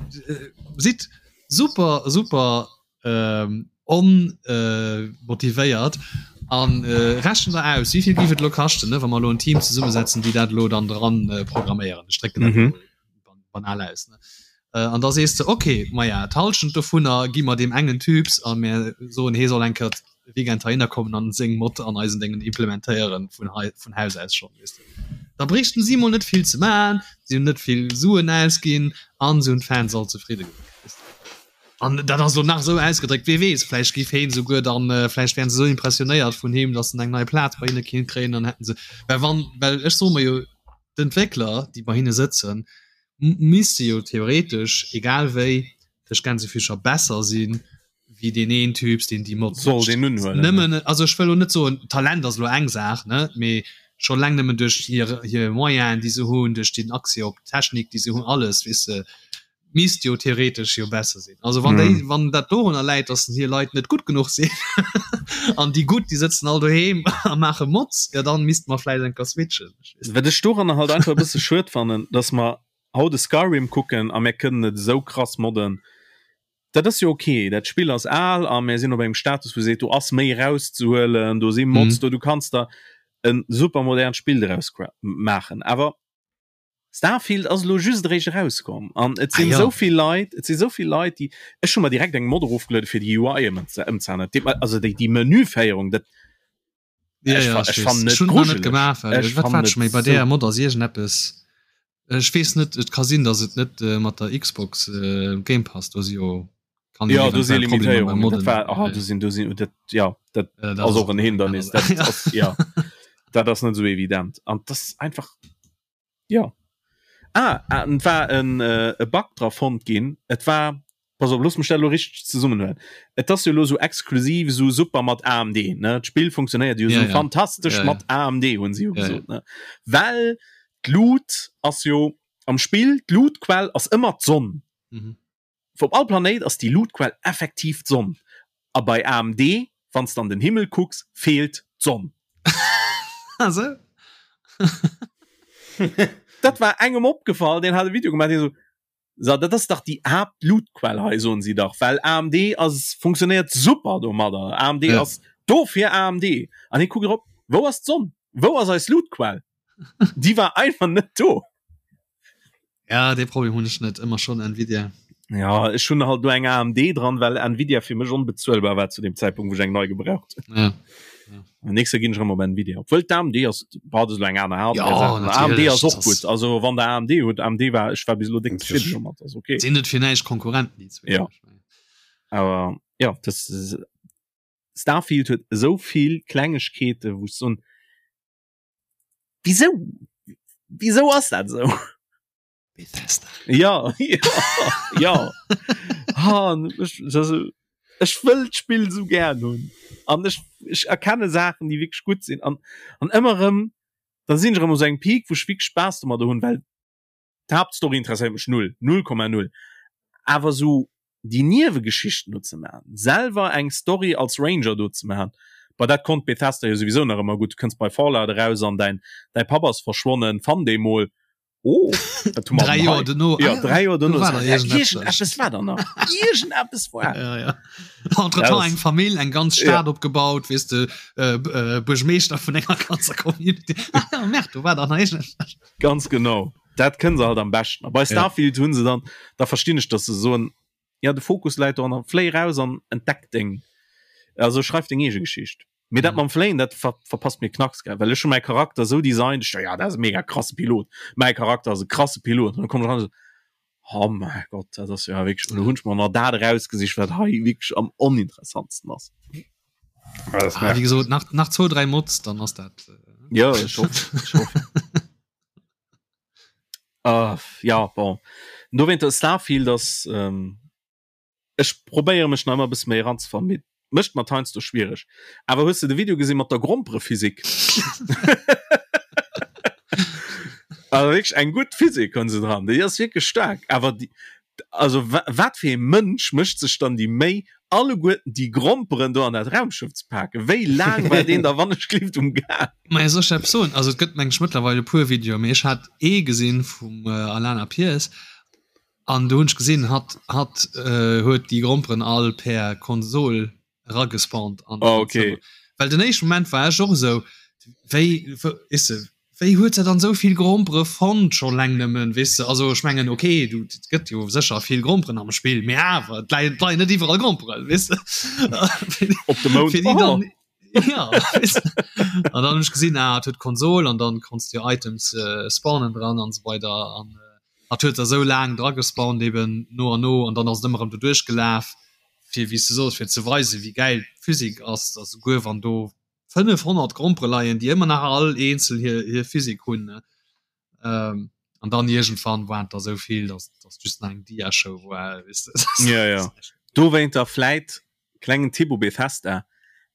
D: sidd super, super onmotivéiert an rechent der aus, wéivill giff et lo kaschten, ne, wa mer lo en Team zesummesetzen, déi dat lo dann dran programméieren. Ech drécken dat lo banal aus, ne? An da sees de, ok, maja, d'Hallschent dovunner gi mer deem engen Typs a mir soen, hee soll eng Kéier de Weekend heihinner kommen an seng Mod an eisen Déngen implementéieren, vun hei, vun Haus aus schonn, weess de. Da bréichten si mol net vill ze maachen, si hunn net vill Suen ausginn an se hunn d'Fans all zefridde gemaach, weess de. An dat ass elo nach esou ausgedréckt, wee weess, vläicht géif heen esouguer dann, vläicht wären se esou impressionéiert vun him, datt en eng nei Plaz bei hinne kinnt kréien, dann hätten se, well wann, well ech soe mer jo, d'Entwéckler, déi bei hinne sëtzen, misste jo theoretesch egal wéi duerch Gänsefüßcher besser sinn wéi deen een Typs deen déi Mod
C: Soll
D: mécht.
C: deen unhuelen,
D: Nëmmen, also ech wëll lo net soen Talent ass lo eng Saach ne, mee scho leng nëmmen duerch hir hir Moyenen déi se hunn, duerch den Accès op d'Technik déi se hunn, alles weess de, misst jo theoretesch jo besser sinn. Also wann déi
C: Mhm.
D: wann dat dorunner läit, datt hir Leit net gutt genuch sinn an déi gutt déi sëtzen all doheem a maache Mods, jo dann misste mer vläicht eng Kéier switchen.
C: Wat ech doranner halt einfach e bësse schued fannen, dass mer haut e Skyrim kucken a mir kënnen et esou krass modden. Dat ass jo ok, dat Spill ass al a mir sinn op engem Status wou seet, do ass méi erauszehuelen, do si Mods
D: Mhm.
C: do, du kanns der e super modernt Spill doraus maachen. Awer Starfield ass elo just eréischt erauskomm an et
D: Ah
C: sinn
D: ja.
C: esou vill Leit, et si sou vill Leit, déi, ech hu mer direkt eng Mod erofgeluede fir déi UI ëmzeänneren, also déi déi Menüféierung, dat
D: Ja,
C: Ech
D: ja,
C: fa-
D: ech
C: ech
D: weess.
C: fannen
D: Ech
C: et
D: hunn nach net
C: grujeleg.
D: gemaach, well
C: Ech
D: wat
C: fannen
D: war
C: et
D: schon méi bei
C: so
D: der Mod ass iergendeppes. Ech weess net, et ka sinn, datt et net äh, mat der Xbox äh, Game Pass do si jo kann
C: Ja, do si
D: eventuell Problemer beim
C: Limitéierungen. Dat
D: Modden.
C: war ah, do sinn do sinn dat ja dat
D: Äh, dat
C: ass
D: ass
C: och en
D: eng aner
C: Hindernis.
D: Saach.
C: Dat ass ja dat ass net sou evident an das ist einfach ja. Ah, ah, et war en äh, e Bug dra fonnt ginn. Et war. Pass op, looss mech dat elo richteg zesummenhuelen. Et ass jo elo sou exklusiv, sou super mat AMD, ne? D'Spill funktionéiert jo sou fantastesch mat AMD, hunn se jo gesot, ne? Well d'Lut ass jo am Spill, d'Lutquell ass ëmmer d'Sonn. Op all Planéit ass déi Lutquell effektiv d'Sonn. A bei AMD, wann s de an den Himmel kucks, feelt d'Sonn.
D: Ah sou?
C: Dat war engem opgefall, deen hat e Video gemaach, deen esou, So, dat ass dach déi Haaptlootquell hei, soen si dach, well AMD ass, funktionéiert super domadder. AMD ja. ass dofir AMD. An hie kuckt erop, wou ass d'Sonn? Wou ass eis Lootquell? Déi war einfach net do.
D: Ja, dee Problem hunn ech net, ëmmer schonn Nvidia.
C: Ja, ech hunn halt nur eng AMD dran, well Nvidia fir mech onbezuelbar war zu dem Zeitpunkt, wou ech eng nei gebraucht
D: hunn. Ja.
C: Ja. Nächste ginn ech erëm op Nvidia. Obwuel d'AMD ass, bah, dat ass elo eng aner Hardware. Ja,
D: natierlech,
C: AMD ass och gutt. Also wann der AMD hutt, AMD war, ech war bis elo déck zefridden domat, ass okay.
D: Sinn net fir näischt Konkurrenten déi
C: zwee. Ja. Awer ja, das Starfield huet esou vill Klengegkeete wou ech soen, wisou? Wisou ass dat esou?
D: Bethesda.
C: Ja, ja, ja. Ha, ech, also, ech wëll d'Spill sou gär hunn. An ech, ech erkenne Saachen, déi wierklech gutt sinn. An, an ëmmer erëm, da sinn ech erëm u sou engem Peak, wou ech wierklech Spaass domadder hunn, well d'Haaptstory interesséiert mech null, 0,0. Awer sou déi Niewegeschichten do ze maachen, selwer eng Story als Ranger do ze maachen, bah dat konnt Bethesda jo souwisou nach ëmmer gutt. Du kënns bei Fallout eraus an däin, däi Papp ass verschwonnen, fann dee mol. Oh,
D: dat hu mer Dräi Joer dono.
C: Ja, dräi Joer dono. War da iergendeppes war da nach. Iergendeppes war.
D: Ja, ja. Entretemps eng Famill, eng ganz Stad ja. opgebaut, weess de, äh, äh, Buergmeeschter vun enger ganzer Community. Ah, ja, Merde, do war da nach iergendeppes.
C: Ganz genau. Dat kënne se halt am beschten. A bei Starfield ja. hunn se dann, da verstinn ech, dass se soen, ja, de Fokus läit do an fléi raus an entdeck deng, also schreif deng eege Geschicht. Mee dat mam Fléien, dat ver verpasst mir knacks, gell, well ech hu mäi Charakter esou designt, ech ja, dat ass e mega krasse Pilot, mäi Charakter ass e krasse Pilot, an dann komm ech ran, oh mäi Gott, dat ass jo wierklech, elo hunn ech mer nach dat erausgesicht, wat hei wierklech am oninteressantsten ass.
D: Ah, wéi gesot, nach, nach zwou, dräi Mods, dann ass dat.
C: Äh, ja, ech hoffen, ech hoffen. uh, ja, bon. Dowéinter Starfield ass, ähm, Ech probéiere mech nach ëmmer e bësse méi eranzefannen, mee mécht mer et heiansdo schwiereg. Awer hues de de Video gesi mat der Gromperephysik? Also wierklech eng gutt Physik hunn se dran, déi ass wierklech staark. Awer déi, also wat fir ee Mënsch mécht sech dann déi Méi, alleguerten déi Gromperen do an dat Raumschëff ze paken? Wéi laang war deen da wannechgelift um Gaang?
D: Maja, soll ech der eppes soen? Also et gëtt meng ech mëttlerweil e puer Videoen, mee ech hat ee gesinn vum Alana Pierce, An do hunn ech gesinn, hatt hatt huet déi Gromperen all per Konsol eragespawnt an
C: oh, okay.
D: Zëmmer. Well den éischte Moment war ech och esou, wéi weess de, wéi huet se dann esou vill Grompere fonnt scho leng nëmmen, weess de? Also ech mengen okay, du et gëtt jo sécher vill Gromperen am Spill, mee awer et leien et leien net iwwerall Gromperen, weess de?
C: Op dem Mound,
D: Fir déi dann Ja, an dann hunn ech gesinn, ah, et huet Konsol an dann konns du jo Items äh, spawnen dran an esou weider an äh, hat huet der sou laang dra gespawnt eben no an no an dann ass et ëmmer erëm do duerchgelaf fir wéi s du sos fir ze weisen wéi gäil d'Physik ass, dass souguer wann do 500 Grompere leien, déi ëmmer nach all eenzel hir hir Physik hunn ne ähm, an dann iergendwann waren et der sou vill, dass dass just nach eng Diashow war weess de.
C: Ja, ja. Dowéinter vläit Klengen Tipp u Bethesda,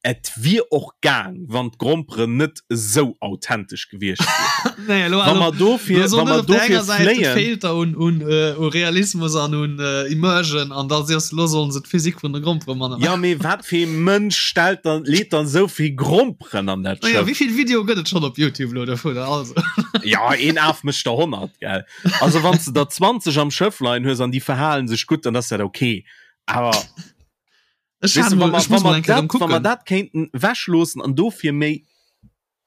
C: Et wier och gaang, wann d'Gromperen net esou authentesch gewiescht
D: wieren. Nee, elo, Wa mer dofir, wa mer dofir fléien. Feelt der un, un, u Realismus an un Immersion an da siehst lo sollen se d'Physik vun de Grompere manner
C: Ja, mee wat fir ee Mënsch stellt dann, leet dann esou vill Gromperen an dat
D: Schëff? Wéi vill Videoe gëtt et schonn op Youtube lo dovunner? Also.
C: Ja, een Af mécht der 100, gell? Also wann s de der 20 am Schëff leien hues an déi verhalen sech gutt, dann ass dat ok. Awer.
D: Ech hat mal, ech muss mal eng Kéier
C: kucken. Wa mer dat kéinten wechloossen an dofir méi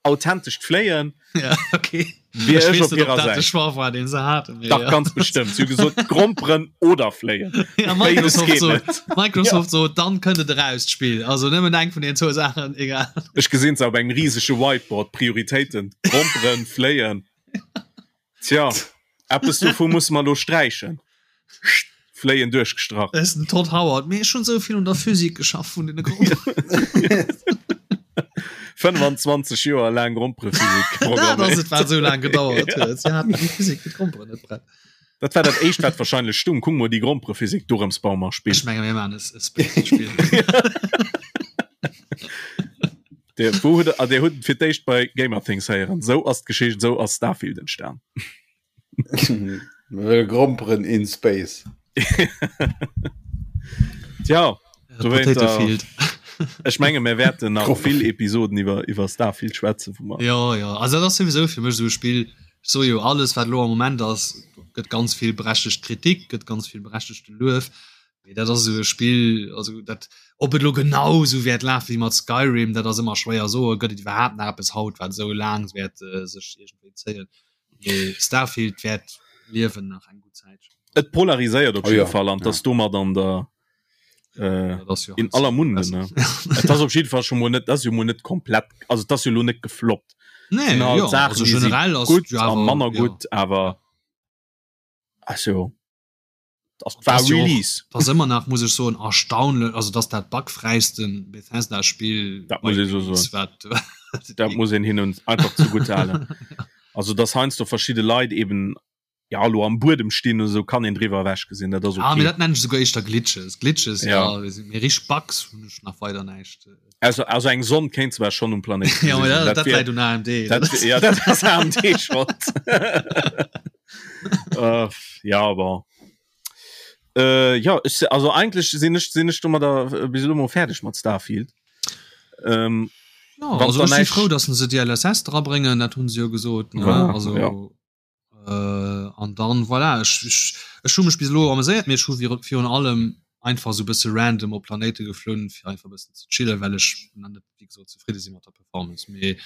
C: authentescht Fléien.
D: Ja, okay.
C: Wier ech op hirer
D: Säit. De Choix war, deen se haten.
C: Dach, ja. ganz bestëmmt. Si hu gesot, Gromperen oder Fléien.
D: Ja, Microsoft sot, Microsoft ja. sot, dann kënnt et eraus, d'Spill. Also nëmmen eng vun den zwou Saachen, egal.
C: Ech gesinn se op engem risege Whiteboard, Prioritéiten, Gromperen, Fléien. Tja, eppes dovu musse mer elo sträichen. Fléien duerchgestrach.
D: Dat ass den Todd Howard. Mee ech hunn esou vill un der Physik geschafft vun deene Gromperen.
C: 25 Joer laang Gromperephysik
D: Dat ass et, wat esou laang gedauert huet. Si haten déi Physik fir d'Gromperen net prett.
C: Dat war dat éischt wat wahrscheinlech stung. Kuck mol déi Gromperephysik, dorëms baue mer e Spill.
D: Ech menge mir maachen e Space-Spill.
C: Der, wou huet, ah, der huet et fir d'éischt bei Gamerthings héieren. Sou ass d'Geschicht, sou ass Starfield entstan.
B: Mir wëlle Gromperen in Space.
C: Tja,
D: Äh, Potato Field.
C: Ech menge mir wäerten nach vill Episoden iwwer iwwer Starfield schwätzen,
D: wou mer. Jo, jo, also dat ass souwisou fir mech esou e Spill, ech soe jo, alles wat elo am Moment ass, gëtt ganz vill berechtegt Kritik, gëtt ganz vill berechtegte Luef, mee dat ass esou e Spill, also dat, ob et elo genau esou wäert lafe wéi mat Skyrim, dat ass ëmmer schwéier soen, gëtt et iwwerhaapt nach eppes haut wat esou laang wäert sech iergendwéi zéien, mee Starfield wäert liewen nach eng gutt Zäitchen.
C: Et polariséiert op jidde Fall an 't ass domat an der Äh, ja in aller Munde ne Et ass op jidde Fall schon mol net das jo mol net komplett also das jo lo net gefloppt
D: nee,
C: halt ja, Sachen, also
D: generell
C: ass gut ja, manner ja. gut awer also das war
D: das
C: Release
D: das immer nach muss ich so erstaunlich also dass dat bugfreisten Bethesda Spiel
C: dat muss ich so so dat muss een hin und einfach zugute halen also das heinsst du verschiedene Leit eben ja lo am Buedem stinn oder sou kann een driwwer ewech gesinn dat ass
D: okay. Ah, mee dat nennen ech souguer éischter Glitches. Glitches, ja, ja. mee richteg Bugs hunn ech nach weider näischt.
C: Also, also eng Sonn kéint zwar schonn um Planéit
D: ja, mee dat, dat, dat läit un AMD.
C: Dat, ja, dat ass AMD Schold. uh, ja, bon. Äh, ja, ich, also eigentlich sinn ech, sinn ech domadder äh, bis elo mol fäerdeg mat Starfield.
D: Ähm, ja, also ech si frou, dass se d'DLSS drabréngen, dat hunn se jo gesot. Ne? Ja, also, ja. Äh, an dann voilà, ech, ech, ech hu mech bis elo ameséiert, mee ech hu virun allem einfach sou bësse random op Planéite geflunn, fir einfach bëssen ze chillen, well ech nach net wéi gesot zefridde si mat der Performance. Mee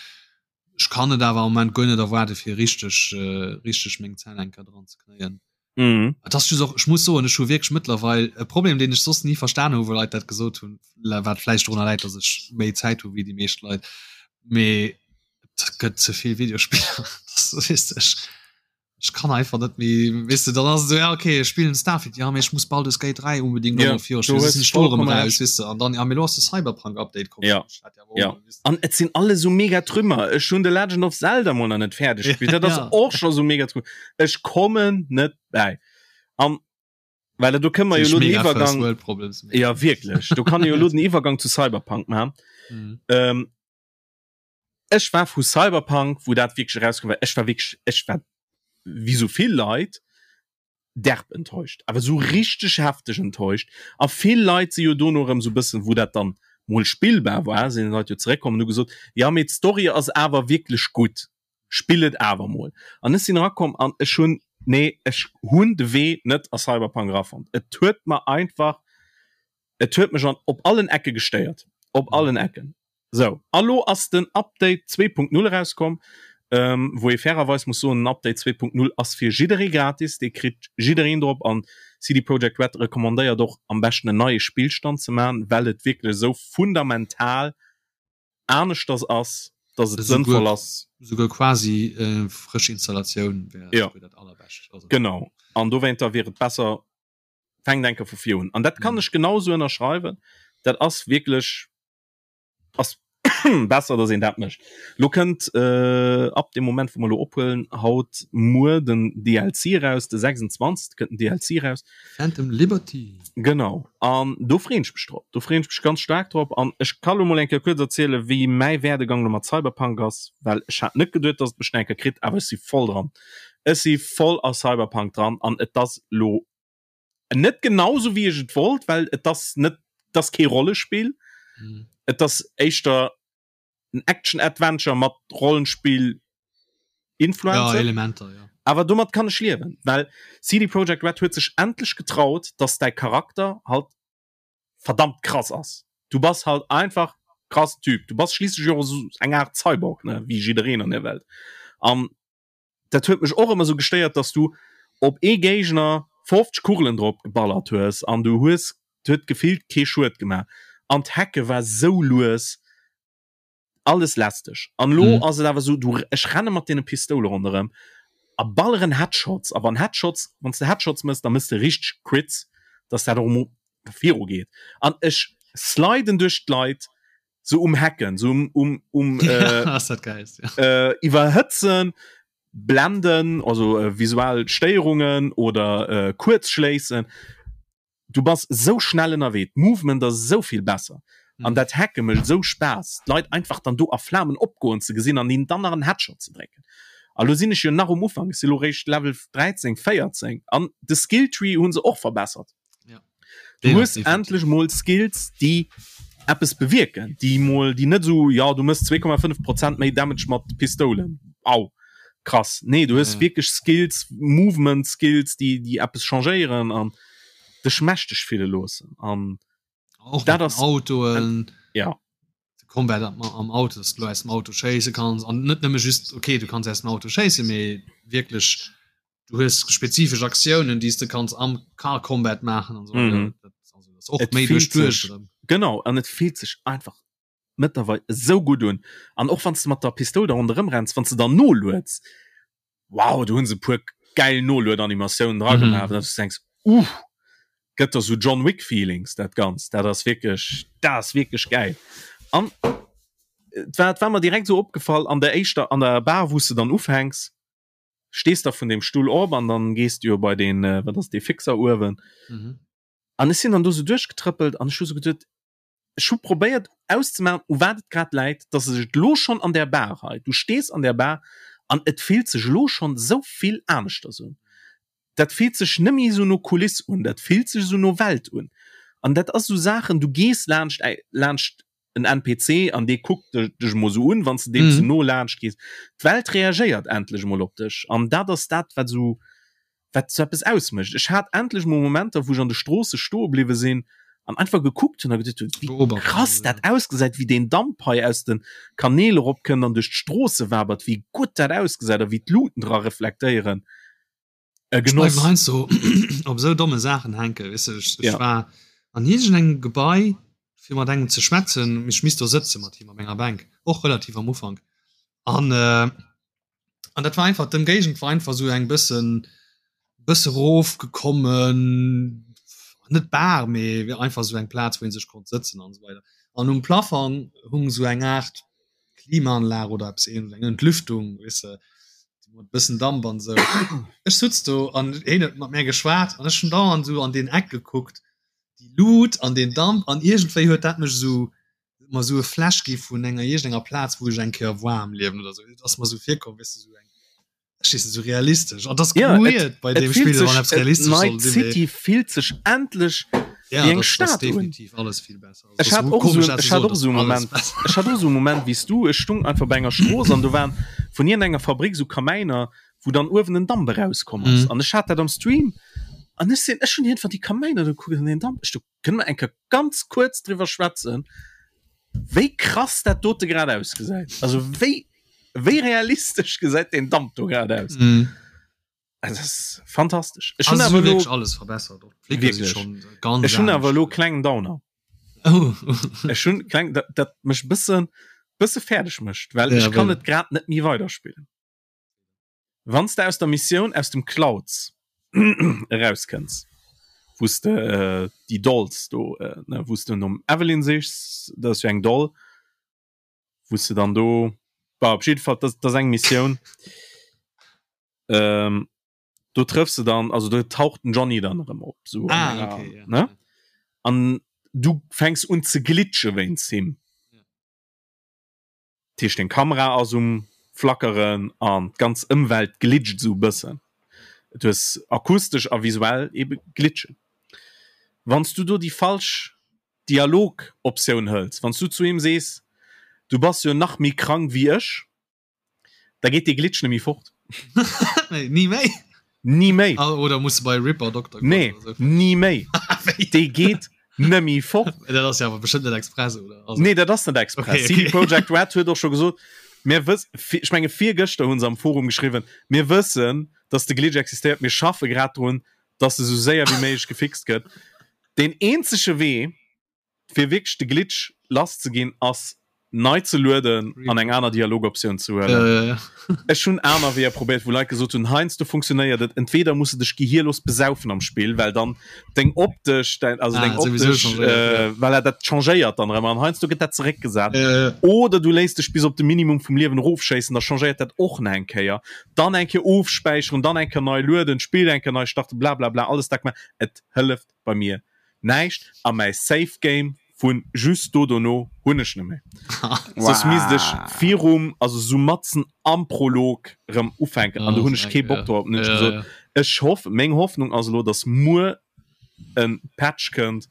D: ech kann et awer am Moment guer net erwaarde fir richteg äh, richteg meng Zänn eng Kéier dran ze knéien.
C: Mhm.
D: Et ass just och, ech muss soen, ech hu wierklech mëttlerweil e Problem, deen ech soss ni verstan hu wou Leit dat gesot hunn, wat vläicht dorunner läit, datt ech méi Zäit hu wéi déi meescht Leit, mee et gëtt ze vill Videospiller weess de, ech ech kann einfach net méi weess de, dann ass et esou ja okay ech spillen Starfield ja mee ech muss Baldur's Gate 3 unbedingt
C: Ja,
D: och nach
C: du
D: virspillen,
C: hues
D: soss sinn ech do erëm
C: vollkommen
D: raus
C: Recht.
D: weess de an dann ja mee elo ass de Cyberpunk Update komm
C: Ja,
D: ech hat ja awer
C: ja.
D: och weess de.
C: An et sinn alles esou mega Trümmer. Ech hunn The Legend of Zelda mol nach net fäerdeg gespillt. Dat ass
D: Ja.
C: och scho sou mega Trümmer. Ech kommen net bäi. An well do kënne mer jo elo den
D: Mega First
C: Iwwergang
D: World Problems mee.
C: Ja wierklech, do kann ee jo elo den Iwwergang zu Cyberpunk maachen.
D: Mhm.
C: Ähm, Ech war vu Cyberpunk, wou dat wierklech erauskomm war, ech war wierklech, ech war wéi sou vill Leit derb enttäuscht, awer sou richteg hefteg enttäuscht. A vill Leit si jo dono erëm sou bëssen, wou dat dann mol spillbar war, sinn d'Leit jo zeréckkomm an hu gesot, jo mee d'Story ass awer wierklech gutt, spill et awer mol. An ech sinn erakomm an ech hunn, nee, ech hunn de Wee net a Cyberpunk erafonnt. Et huet mer einfach, et huet mech an op allen Ecke gestéiert, op allen Ecken. Sou, a lo ass den Update 2.0 erauskomm, wou ee fairerweis muss soen, den Update 2.0 ass fir jidderee gratis, dee kritt jiddereen drop an CD Projekt Red recommandéiert och am beschten en neie Spillstand ze man, well et wierklech esou fundamental aneschters ass, dass et sënnvoll ass.
D: Esouguer quasi frësch Installatioun wär esouguer dat allerbescht.
C: Genau, an dowéinter wier et besser, fänkt eng Kéier vu vir un. An dat kann ech genau esou ënnerschreiwen, dat ass wierklech. ass besser dass een dat mécht. Lo kënnt äh, ab dem Moment wou mer lo ophuelen haut muer den DLC raus, de 26 kënnt den DLC raus.
D: Phantom Liberty.
C: Genau an do freen ech mech drop. Do freen ech mech ganz staark drop an ech ka lo mol eng Kéier kuerz erziele wéi mäi Werdegang lo mat Cyberpunk ass, well ech hat net geduet dass et mech eng Kéier kritt, awer ech si voll dran. Ech si voll a Cyberpunk dran an et ass lo net genau sou wéi ech et wollt, well et ass net et ass kee Rollespill.
D: Mhm.
C: Et ass éischter en Action Adventure mat Rollenspill Influenzen.
D: Ja, Elementer, ja.
C: Awer domat kann ech liewen, well CD Projekt Red huet sech endlech getraut, dass däi Charakter halt verdammt krass ass. Du bass halt einfach krass Typ. Du bass schliisslech och esou eng Aart Cyborg, ne, wéi jiddereen an der Welt. An dat huet mech och ëmmer sou gestéiert, dass du op ee Géigner 50 Kugelen drop geballert hues an du hues huet gefillt kee Schued gemaach an d'Hacke war sou lues, alles lästeg. An elo ass et awer sou, du ech renne mat deene Pistoule ronderëm a balleren Headshots a wann Headshots, wann s de Headshots mëss, da mëss de richteg Crits, dass dat och emol viru geet an ech sliden duerch d'Leit, sou um Hacken, sou um, um, um äh,
D: Ass dat geil,
C: ja. äh, iwwerhëtzen. Blenden, also äh, visuell Stéierungen oder äh, Kuerzschléissen. Du bass sou schnell ënnerwee, d'Movement ass esou vill besser an dat Hacke mécht esou Spaass, d'Leit einfach dann do a Flamen opgoen ze gesinn an hinnen dann nach en Headshot ze drécken. A lo sinn ech jo nach um Ufank, ech si lo réischt Level 13, 14 an de Skilltree hu se och verbessert. Du hues endlech mol Skills, déi eppes bewierken, déi mol, déi net esou, jo du méchs 2,5 Prozent méi Damage mat Pistoulen, au krass. Nee, du hues wierklech Skills, Movement Skills, déi, déi eppes changéieren an dech mächteg fille loossen an
D: och dat ass Autoen
C: ja
D: de Combat am, am Auto, dass du aus dem Auto schéisse kanns an net nëmme just okay du kanns aus dem Auto schéisse mee wierklech du hues spezifesch Aktiounen déi s de kanns am Car Combat maachen an so
C: mhm.
D: dat, also, das och méi duerch duerch
C: genau an et fillt sech einfach mëttlerweil esou gutt un an och wann s de mat der Pistoul da ronderëm renns wann s de dann nolueds wow do hunn se e puer gäil Noluedanimatiounen dra gemaach mhm. dass du denkst uh gëtt der sou John Wick Feelings dat Ganzt dat ass wierklech dat ass wierklech gäil an et war et war mer direkt sou opgefall an der éischter an der Bar wou s de dann ufänks stees da vun dem Stull op an dann gees du jo bei den äh, wat ass dee Fixer uewen
D: mhm.
C: an ech sinn dann do sou duerchgetrëppelt an ech hu sou geduet Ech hu probéiert auszemaachen, u wat et grad läit, dass sech et elo schonn an där Bar hei, du stees an där Bar an et fillt sech elo schonn esou vill aneschters un. Dat fillt sech net méi esou no Kuliss un, dat fillt sech esou no Welt un. An dat ass esou Saachen, du gees laanscht laanscht en NPC an dee kuckt dech emol esou un, wann s de deem ze no laanscht gees. D'Welt reagéiert endlech emol op dech an dat ass dat, wat esou wat sou eppes ausmécht. Ech hat endlech mol Momenter, wou ech an de Stroosse stoe bliwwe sinn an einfach gekuckt hunn a geduet hunn, wéi krass dat ausgesäit, wéi deen Damp hei aus de Kanäl eropkënnt an duerch d'Stroosse wabert, wéi gutt dat ausgesäit a wéi d'Luuten dra reflektéieren. E
D: Ech
C: Genoss.
D: bleiwen heiansdo op esou domme Saachen hänken, weess de. Ech, ech
C: Ja.
D: war an iergendengem Gebai, fir mat engem ze schwätzen, mee ech misst do sëtze mat him op enger Bänk, och relativ am Ufank. An an dat war einfach d'Ëmgéigend war einfach sou eng bëssen bësse rofgekommen, net Bar, mee einfach sou eng Plaz wou een sech konnt sëtzen an esou weider. An um Plafang hung sou eng Aart Klimaanlag oder eppes ähnlech, eng Entlüftung, weess de, mat bëssen Damp an esou. Ech sutz do an hien huet mat mär geschwat an ech hunn dauernd sou an deen Eck gekuckt, déi Lut an deen Damp an iergendwéi huet dat mech esou mer sou e Flash gi vun enger iergendenger Plaz wou ech eng Kéier war am Liewen oder sou. Et ass mer sou virkomm, weess de, sou eng, ech weess net, sou realistesch. An dat ass
C: Ja, et,
D: weird bei
C: et
D: deem
C: fillt
D: Spill, wann
C: sech,
D: eppes
C: et,
D: realistesch soll
C: Night
D: sinn, mee
C: City fillt sech endlech
D: ja,
C: wéi eng
D: dat ass
C: Stad un.
D: definitiv alles vill besser. Also,
C: Ech
D: dat
C: hat
D: ass
C: och
D: komesch
C: esou,
D: dat ze
C: ech hat
D: soen,
C: och
D: dat
C: esou e
D: ass alles
C: Moment,
D: besser.
C: ech hat och esou e Moment wéi s du, ech stung einfach bei enger Strooss an do waren vun iergendenger Fabrik esou Kamäiner, wou dann uewen en Damp erauskomm ass.
D: Mhm.
C: An ech hat dat am Stream an ech sinn, ech hunn iergendwann déi Kamäiner do gekuckt an deen Damp, ech do, Kënne mer eng Kéier ganz kuerz driwwer schwätzen, wéi krass dat dote grad ausgesäit? Also wéi, wéi realistesch gesäit deen Damp do grad aus?
D: Mm.
C: Also, das ist fantastesch. Ech hunn
D: Also,
C: awer
D: wirklich
C: lo,
D: alles verbessert. Och d'Flicker si
C: Wirklich.
D: schon ganz
C: ech hunn awer
D: anescht.
C: lo klengen Downer.
D: Oh.
C: Ech hunn kleng, dat, dat mech bëssen, bësse fäerdeg mécht, well
D: Ja,
C: ech kann
D: well-
C: et grad net méi weiderspillen. Wann s de aus der Missioun aus dem Clouds erauskënns, wou s de déi Dolls do, ne, wou s de nom Evelyn sichs, dat ass jo eng Doll, wou s de dann do, bah, op jidde Fall, dat ass eng Missioun, do trëffs de dann, also do taucht den Johnny dann erëm op, sou an enger, ne, an du fänks un ze glitche wéinst him. Dat heescht deng Kamera ass um flackeren an d'ganz Ëmwelt glitcht esou e bëssen. Du hues akustesch a visuell ebe Glitchen. Wann s du do déi falsch Dialogoptioun hëls, wann s du zu him sees, du bass jo nach méi krank wéi ech, Da geet dee Glitch nemmi fort.
D: Nee, ni méi.
C: Ni méi.
D: Ah, oder muss bei Ripper Doktor
C: Nee, ni méi. Dee geet nemmi fort.
D: Dat ass ja awer bestëmmt net express, oder?
C: Also... Nee, dat ass net express. Okay, okay. CD Projekt Red huet och scho gesot, mir wëss, ech menge virgëschter hunn se am Forum geschriwwen, mir wëssen, dass de Glitch existéiert, mir schaffe grad drun, dass e sou séier wéi méiglech gefixt gëtt. Deen eenzege Wee, fir wierklech de Glitch lass ze ginn, ass. Nei ze lueden an eng aner Dialogoptioun ze huelen.
D: Ja, ja, ja.
C: Ech hunn aner Weeër probéiert, wou Leit gesot hunn, heiansdo funktionéiert et, entweder muss de dech gehierlos besaufen am Spill, well dann deng optesch, dein, also
D: Ah,
C: deng
D: sowieso
C: optesch,
D: changéiert,
C: äh,
D: ja.
C: well er dat changéiert dann erëm an heiansdo gëtt dat zeréckgesat.
D: Ja, ja.
C: Oder du léiss dech bis op de Minimum vum Liewen erofschéissen, da changéiert dat och nach eng Kéier. Dann eng Kéier ofspäicheren, dann eng Kéier nei lueden, d'Spill eng Kéier nei starten, blablabla, alles dat gemaach. Et hëlleft bei mir näischt a mäi Save Game vun just do dono hunn ech net méi. Soss misst ech virum, also sou matzen am Prolog rëm ufänken an do hunn ech kee Bock drop. Hunn ech gesot, ech hoff, meng Hoffnung ass elo, dass muer en Patch kënnt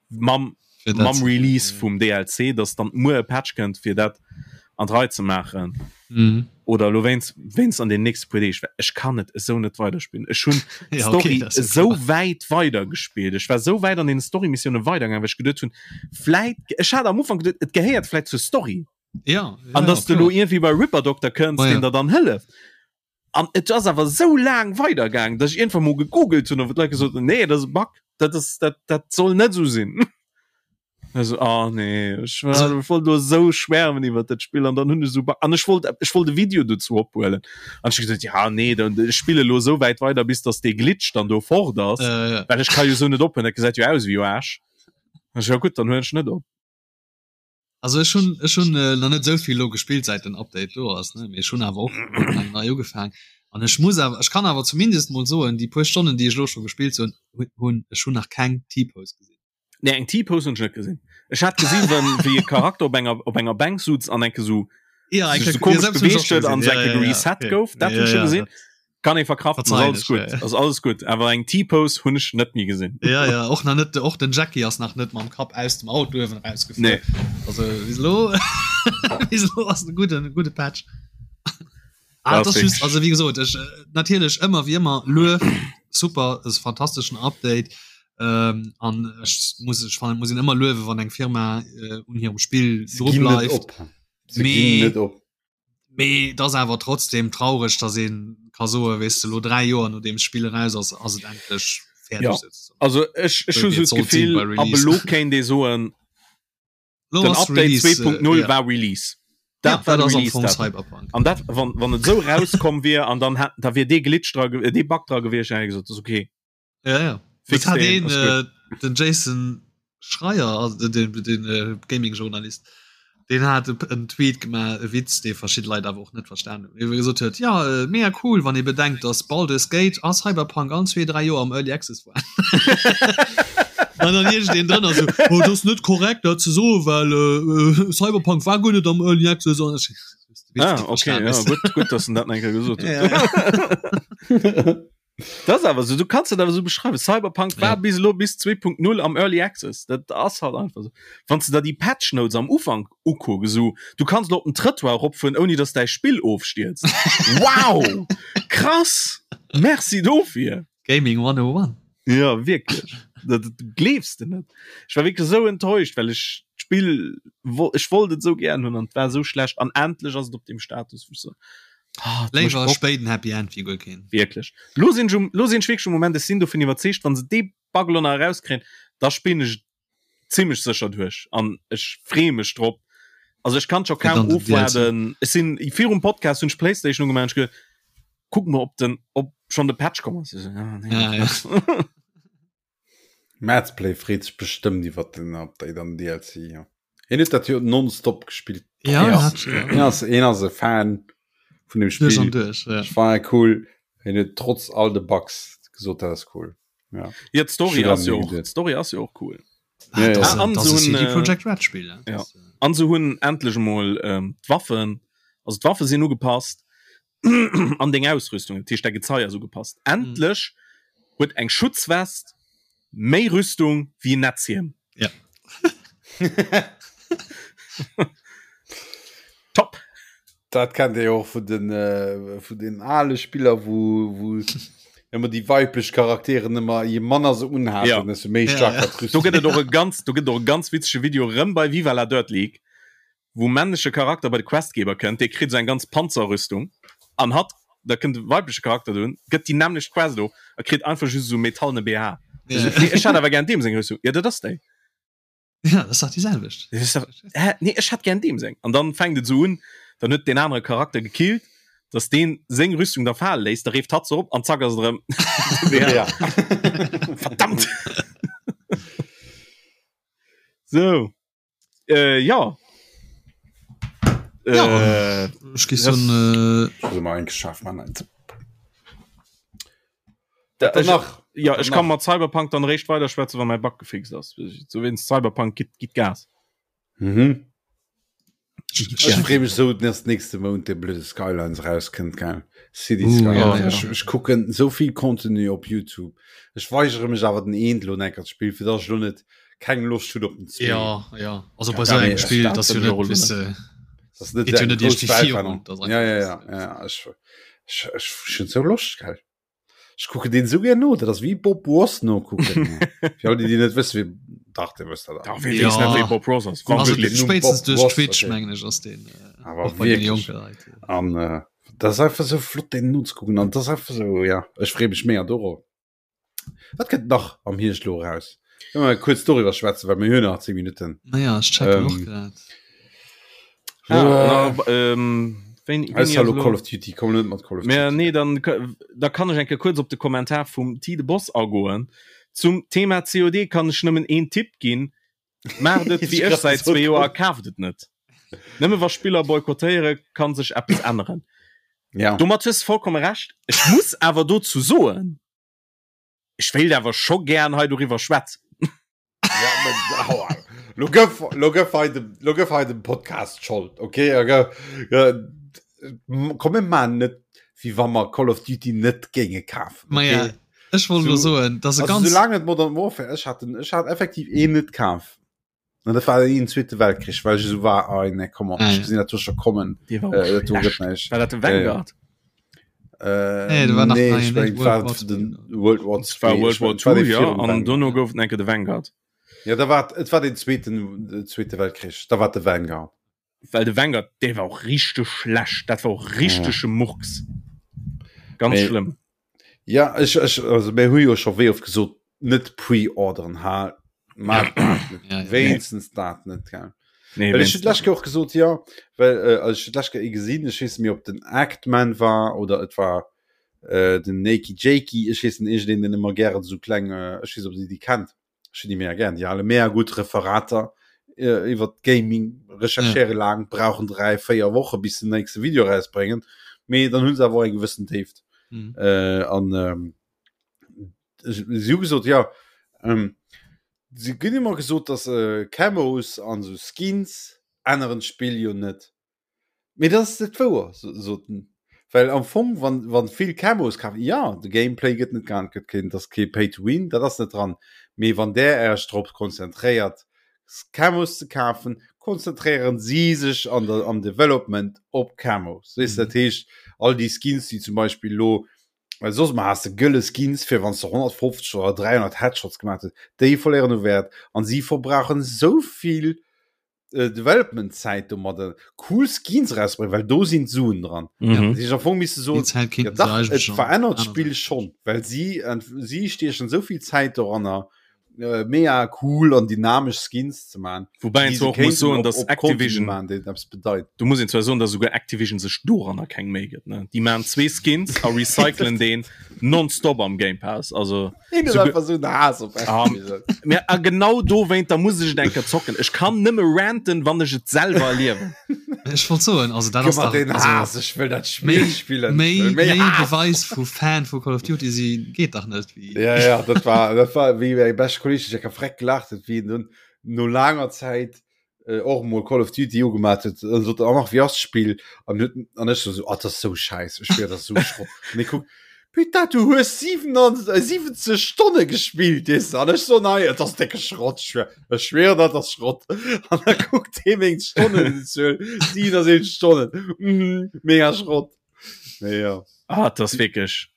C: mam mam Release vum DLC, dass dann muer e Patch kënnt fir dat an d'Rei ze maachen.
D: Mhm.
C: Oder elo wéinst wéinst an den nächste puer Deeg, well ech kann et esou net weiderspillen. Ech hunn
D: Ja, okay,
C: d'Story
D: dat ass jo
C: esou
D: klar.
C: wäit weidergespillt. Ech war esou wäit an den Story-Missioune weidergaangen, well ech geduet hunn, vläit, ech hat am Ufank geduet, et gehéiert vläit zur Story.
D: Ja, ja,
C: An
D: ja,
C: dass du elo
D: klar.
C: iergendwéi bei Ripper Doctor kënns,
D: Ma
C: deen
D: ja.
C: der dann hëlleft. An et ass awer esou laang weidergaangen, dass ech iergendwann mol gegoogelt hunn a wou d'Leit gesot hunn, nee, dat ass e Bug, dat ass, dat, dat soll net esou sinn. Also, oh nee, ech war,
D: Also,
C: ech wollt do esou schwärmen iwwer dat Spill an dann hunn ech esou an ech wollt ech wollt e Video dozou ophuelen an ech hu gesot, ja nee, dann ech spille lo esou wäit weider bis dass dee Glitch dann do fort ass,
D: äh, ja.
C: well ech ka jo esou net ophören, dat gesäit jo aus wéi Aarsch. An ech, ja gutt, dann huelen ech net op.
D: Also ech hunn ech hunn äh, nach net esou vill lo gespillt säit den Update do ass, ne, mee ech hunn awer och eng nei ugefaang an ech muss awer ech kann awer zumindest mol soen, déi puer Stonnen déi ech lo scho gespillt hunn hunn ech hunn nach keng T-Pose gesinn.
C: Nee, eng T-Pose hunn ech net gesinn. Ech hat gesinn, wann wéi e Charakter op enger op enger Bänk sutz an enke sou
D: Ja,
C: sech sou komesch beweegt huet an sou enke gereset gouf. Dat hunn ech scho gesinn. Kann ee verkraften, ass
D: Verzeihen
C: alles
D: ech,
C: gutt,
D: ja, ja.
C: ass alles gutt. Awer eng T-Pose hunn ech net méi gesinn.
D: Ja, ja, och nach net, och den Jackie ass nach net mam Kapp aus dem Auto uewen erausgefuer.
C: Nee.
D: Also bis elo bis elo ass e gudden, gudde Patch. Ah,
C: Das
D: das just,
C: wirklich.
D: also wie gesot ech äh, natierlech ëmmer wie ëmmer Luef super ass fantasteschen Update ähm, an ech muss ech fannen muss een ëmmer luewe wann eng Firma äh, un hirem Spill
B: Se
D: dru
B: ginn net
D: bleift
B: op. Se
D: Mee-
B: ginn net op.
D: mee das awer trotzdem traureg dass een ka soe weess de lo 3 Joer nodeem d'Spill eraus ass ass et endlech fäerdeg
C: Ja.
D: sozusagen.
C: Also ech ech
D: Sou
C: hu
D: wéi
C: sou
D: et sollt sinn
C: d'Gefill
D: bei
C: ab
D: Release.
C: elo kéint ee soen,
D: Lo
C: den
D: ass
C: Update
D: Release, äh,
C: 2.0
D: ja.
C: war Release.
D: Ja,
C: Dat war
D: dat
C: de
D: ass am
C: Release
D: Fong
C: Datum.
D: Cyberpunk.
C: An dat wann wann et sou rauskomm wier an dann hat da wier dee Glitch dra ge- äh, dee Bug dra gewiescht, dann hätt ech gesot, das ist okay.
D: Ja, ja.
C: Fix
D: Das hat
C: den,
D: een,
C: ass gutt.
D: äh, den Jason Schreier, also den, den, den äh, Gaming-Journalist, den hat e- en Tweet gemaach, e Witz, dee verschidde Leit awer och net verstan hunn. Wou e gesot huet, ja, äh, mega cool, wann ee bedenkt, dass Baldur's Gate a Cyberpunk all zwee, dräi Joer am Early Access waren. An dann iergendeen drënner sou, oh, dat ass net korrekt, dat ze soen, well äh, äh, Cyberpunk war guer net am Early Access. An ech,
C: Ah, okay, ja, gutt, gutt, dass en dat nach eng Kéier gesot huet.
D: Ja, ja.
C: Das awer so, du kannst dat awer so beschreiwen. Cyberpunk war
D: Ja.
C: bis elo bis 2.0 am Early Access. Dat ass halt einfach so. Wann du da déi Patch Notes am Ufank ukucks, so, du kannst lo op den Trëttoir eropfueren, ouni dass däi Spill ofstierzt. Wow! Krass! Merci dofir!
D: Gaming 101.
C: Ja, wierklech. Dat, dat gleefs de net. Ech war wierklech esou enttäuscht, well ech d'Spill, wo, ech wollt et esou gären hunn an et war esou schlecht. An endlech ass et op deem Status, wou ech so, ah, et mécht
D: Léiwer
C: Bock.
D: spéit en Happy End wéi guer keen.
C: Wierklech. Lo sinn ech um, lo sinn ech wierklech um Moment, ech sinn dovun iwwerzeegt, wann se dee Bug elo nach erauskréien, da spillen ech et zimmlech sécher duerch an ech freeë mech drop. Also ech kann scho
D: Fir
C: kaum
D: dann den DLC.
C: ofwaarden. Ech sinn virum Podcast hunn ech d'Playstation ugemaach an ech ge kuck mol ob den ob schonn de Patch komm ass. Ech so, ah, nee.
D: Ja, ja.
B: Madsplay freet sech bestëmmt iwwer den Update an DLC. Ja. Hien huet dat jo nonstop gespillt.
D: Ja,
B: Hien ass,
D: hat, ja.
B: hien ass, hien ass e Fan vun dem
D: Duerch an
B: Spill.
D: duerch, ja.
B: Ech war cool. Hien huet trotz all de Bugs gesot, dat ass cool. Ja.
C: Ja, d'Story
B: Schon
C: ass jo
B: lange
C: och,
B: geduet.
C: d'Story ass jo och cool.
D: Ah,
B: Ja, ja.
D: das,
C: Ah, an
D: das
C: so
D: ist
C: ein,
D: CD
C: äh,
D: Projekt Red Spiel. Ja.
C: ja.
D: Das, äh,
C: An se hunn endlech emol ähm, d'Waffen, also d'Waffe sinn ugepasst an deng Ausrüstung, dat heescht däi Gezei ass ugepasst. Endlech huet eng Schutzwest méi Rüstung wéi en Netzhiem.
D: Ja.
C: Top!
B: Dat kennt Dir jo och vun den, äh, vun den ale Spiller, wou, wou ëmmer déi weiblech Charakteren ëmmer, je manner se unhaten,
C: Ja.
B: desto méi
D: Ja,
B: stark
D: ja.
B: war
C: Do
B: d'Rüstung.
C: gëtt et och e ganz, do gëtt et och e ganz witzege Video rëm bei Viva la Dirt League, wou männleche Charakter bei de Questgeber kënnt, dee kritt esou eng ganz Panzerrüstung an hatt, da kënnt de weibleche Charakter dohin, gëtt déi nämmlecht Quest of a kritt einfach just esou metallene BH.
D: Ja.
C: Esou, nee, ech hätt awer gär deem seng Rüstung. Ja, dat ass déi.
D: Ja, das sagt die selwecht.
C: Hä? Nee, ech hätt gern deem seng. An dann fänkt et sou un, dann huet deen anere Charakter gekillt, dass deen seng Rüstung da fale léisst, da reeft hatt se op an zack ass et erëm
B: Ja.
C: Verdammt! Sou. Äh, ja.
D: Ja.
C: Äh,
D: Ech gi so äh,
B: Also mal eng geschafft man eins.
C: Da,
B: Dann
C: ech,
B: nach.
C: ja,
B: Dann
C: ech kann
B: nach.
C: mat Cyberpunk dann réischt weider schwätzen, wann mäi Bug gefixt ass. So wéinst Cyberpunk gitt, gitt Gas.
B: Mhm.
D: ich,
B: Ech freeë mech sou, dass nächste Mount de blöde Skylines rauskënnt gell. City
D: Uh,
B: Skylines.
D: ja, ja.
B: Ech, ech kucken sou vill Contenu op YouTube. Ech weigere mech awer den eent lo enker ze spillen, fir dass ech lo net keng Loscht hunn op den zwee.
D: ja, ja. Also bei
C: Ja,
D: so
B: nee,
D: engem Spiel,
C: dat
D: das
C: bin
D: jo
C: ich auch
D: net, weißt du,
B: Das ist net
D: Geht jo
B: eng
D: net
B: grouss
D: irgendwie virun,
B: Weltverännerung.
D: das ist
B: Ja, ja,
D: einfach-
B: ja, ja. Ech, ech, ech hunn sou Loscht, gell. Ech kucken deen sou gär no, dat ass wéi Bob Ross nokucken. Fir all déi, déi net wëssen, wie dach, dir wësst dat
C: Da
B: awer.
C: wee
D: Ja.
C: weess net wéi Bob Ross ass.
B: Wann
D: also
B: wirklich
C: Wirklich.
B: nur
D: spätestens
B: Bob
D: duerch
B: Ross,
D: Twitch
B: okay.
D: mengen ech ass den äh,
B: Awer
D: och bei den
B: wirklich.
D: jonke Leit.
B: An äh, dat ass einfach sou flott deen nozekucken an dat ass einfach sou, ja, ech freeë mech mega dorop. Wat kënnt nach am Hierscht lo eraus? Kënne mer kuerz doriwwer schwätzen, well mir hunn nach 10 Minutten.
D: Naja, ech checken och
B: Ähm,
D: grad.
C: Ah, na, ähm, wéini, wéini
B: Ausser
C: ass
B: lo
C: lo-
B: Call of Duty, komm net mat Call of
C: Mä
B: Duty.
C: nee, dann, da kann ech eng Kéier kuerz op de Kommentar vum T de Boss agoen. Zum Thema COD kann ech nëmmen een Tipp ginn, Maacht et wéi ech säit zwee Joer a kaaft et net. Nëmme wa Spiller boykottéiere kann sech eppes änneren.
B: Ja.
C: Domat hues de vollkomme Recht. Ech muss awer dozou soen, ech wéilt awer scho gären hei doriwwer schwätzen.
B: Ja, mä, aua. Lo gëff, lo gëff hei dem, lo gëff hei dem Podcast d'Schold, okay? Ja, gë, gë, komm, mir maachen net, wéi wa mer Call of Duty net géinge kafen,
D: Ma ja,
B: okay?
D: ech wollt lo
B: So-
D: soen, dass e
B: Also,
D: ganz
B: solange et Modern Warfare, ech hat den, ech hat effektiv een net kaf. An dat war den Zweete Weltkrich, well ech esou war, ah, nee, komm on,
D: Ah,
B: ech
D: ja.
B: gesinn dat do scho kommen.
C: Dee war och
B: Äh, dat do gëtt
C: schlecht.
B: näischt.
C: War dat de Vanguard?
B: Äh,
D: Nee, dat war nach
B: nee,
D: nei,
B: ech
D: net
B: mengen,
D: World
B: war
D: War
B: den World War
C: Et war
B: II.
C: World
B: Ech
C: War
B: mengen, et war
C: II,
B: dee
C: ja,
B: virum
C: an
B: Vanguard.
C: dono gouf et enke de Vanguard.
B: Ja, da war, et war den zweeten, den Zweete Weltkrich, da war de Vanguard.
C: Well de Vanguard, dee war och richteg schlecht. Dat war och richtege Murks. Ganz
B: Mee-
C: schlëmm.
B: Ja, ech, ech, also mir hu jo scho wéi oft gesot, net pre-orderen, ha, maach dat net.
D: Ja, ja.
B: Wéinstens dat net, gell.
C: Nee,
B: Well ech hun
C: wéinstens
B: d'lescht Kéier och gesot, ja, well äh, also ech hun d'lescht Kéier ee gesinn, ech weess net méi, ob den Actman war oder et war äh, den Nakey Jakey, ech weess net, iergendeen, deen ëmmer gären esou kleng, äh, ech weess, ob dir déi kennt, ech hunn déi mega gären, déi hale mega gutt Referater äh, iwwer Gaming, recherchéiere ja. laang, brauchen 3, 4 Woche bis den nächste Video rausbréngen, mee dann hunn se awer och eng gewëssen Déift.
D: Mhm.
B: Äh, an ähm, si hu gesot, ja, ähm, si ginn ëmmer gesot, dass äh, Camos an sou Skins änneren d'Spill jo net. Mee dat ass net wouer, sot en. Well am Fong, wann, wann vill Camos kafen, ja, de Gameplay gëtt net geännert, gëtt keen, dat ass kee Pay to Win, dat ass net dran. Mee wann där Äech drop konzentréiert, Camos ze kafen, konzentréieren si sech an der, am Development op Camos. Weess, dat heescht, all déi Skins, déi zum Beispill elo, well soss emmer has de gëlle Skins, fir wann s de 150 oder 300 Headshots gemaach hues, déi verléieren u Wäert an si verbrauchen esou vill äh, Development Zäit domadder cool Skins rausbringen, well do sinn d'Suen dran.
C: Mhm.
B: Si am Fong misste soen,
D: Die Zäit
B: ja,
D: kéinten se
B: dach,
D: eigentlech
B: et
D: schon
B: verännert
D: aner
B: d'Spill schon, well si ent- si stiechen sou vill Zäit doranner äh, mega cool an dynamesch Skins ze man.
C: Wobei een
B: déi
C: zwar
B: se
C: och muss
B: kéinten
C: soen,
B: op,
C: dass
B: op Contenu
C: Activision
B: man, deen eppes bedeit.
C: Du muss een zwar soen, dass esouguer Activision sech doranner keng Méi gëtt, ne? Déi maan zwee Skins a recyclen deen nonstop am Game Pass. Also
B: Een
C: so
B: einfach so Haass op
C: um, ja, a genau dowéint da muss ech et eng Kéier zocken. Ech kann nëmme ranten, wann ech et selwer erliewen.
D: Ech wollt soen, also dat ass
B: Gëff mer
D: dach,
B: den
D: also,
B: Haass, ech wëll dat Spill
D: méi,
B: spillen. Ech
D: méi,
B: wëll méi
D: méi
B: Haass.
D: Beweis vu Fan vu Call of Duty si geet dach net wéi.
B: Ja, ja, dat war, dat war wéi mäi beschte Kolleg, ech ka freck gelacht huet, wéi en dunn no laanger Zäit äh, och mol Call of Duty ugemat huet an sot oh, nach wie ass d'Spill an huet an ech so, so ah, das ist so scheiß ech schwör, das ist so Schrott an ich guck Putain, du hues 97, äh, 70 Stonne gespielt weißt du? an ech so nei das ist dicke Schrott ich schwör, ich schwör dat ass Schrott an da guckt hee meng Stonnenzuel 77 Stonnen mhm, mega Schrott nee, ja.
C: Ah, das ass wierklech.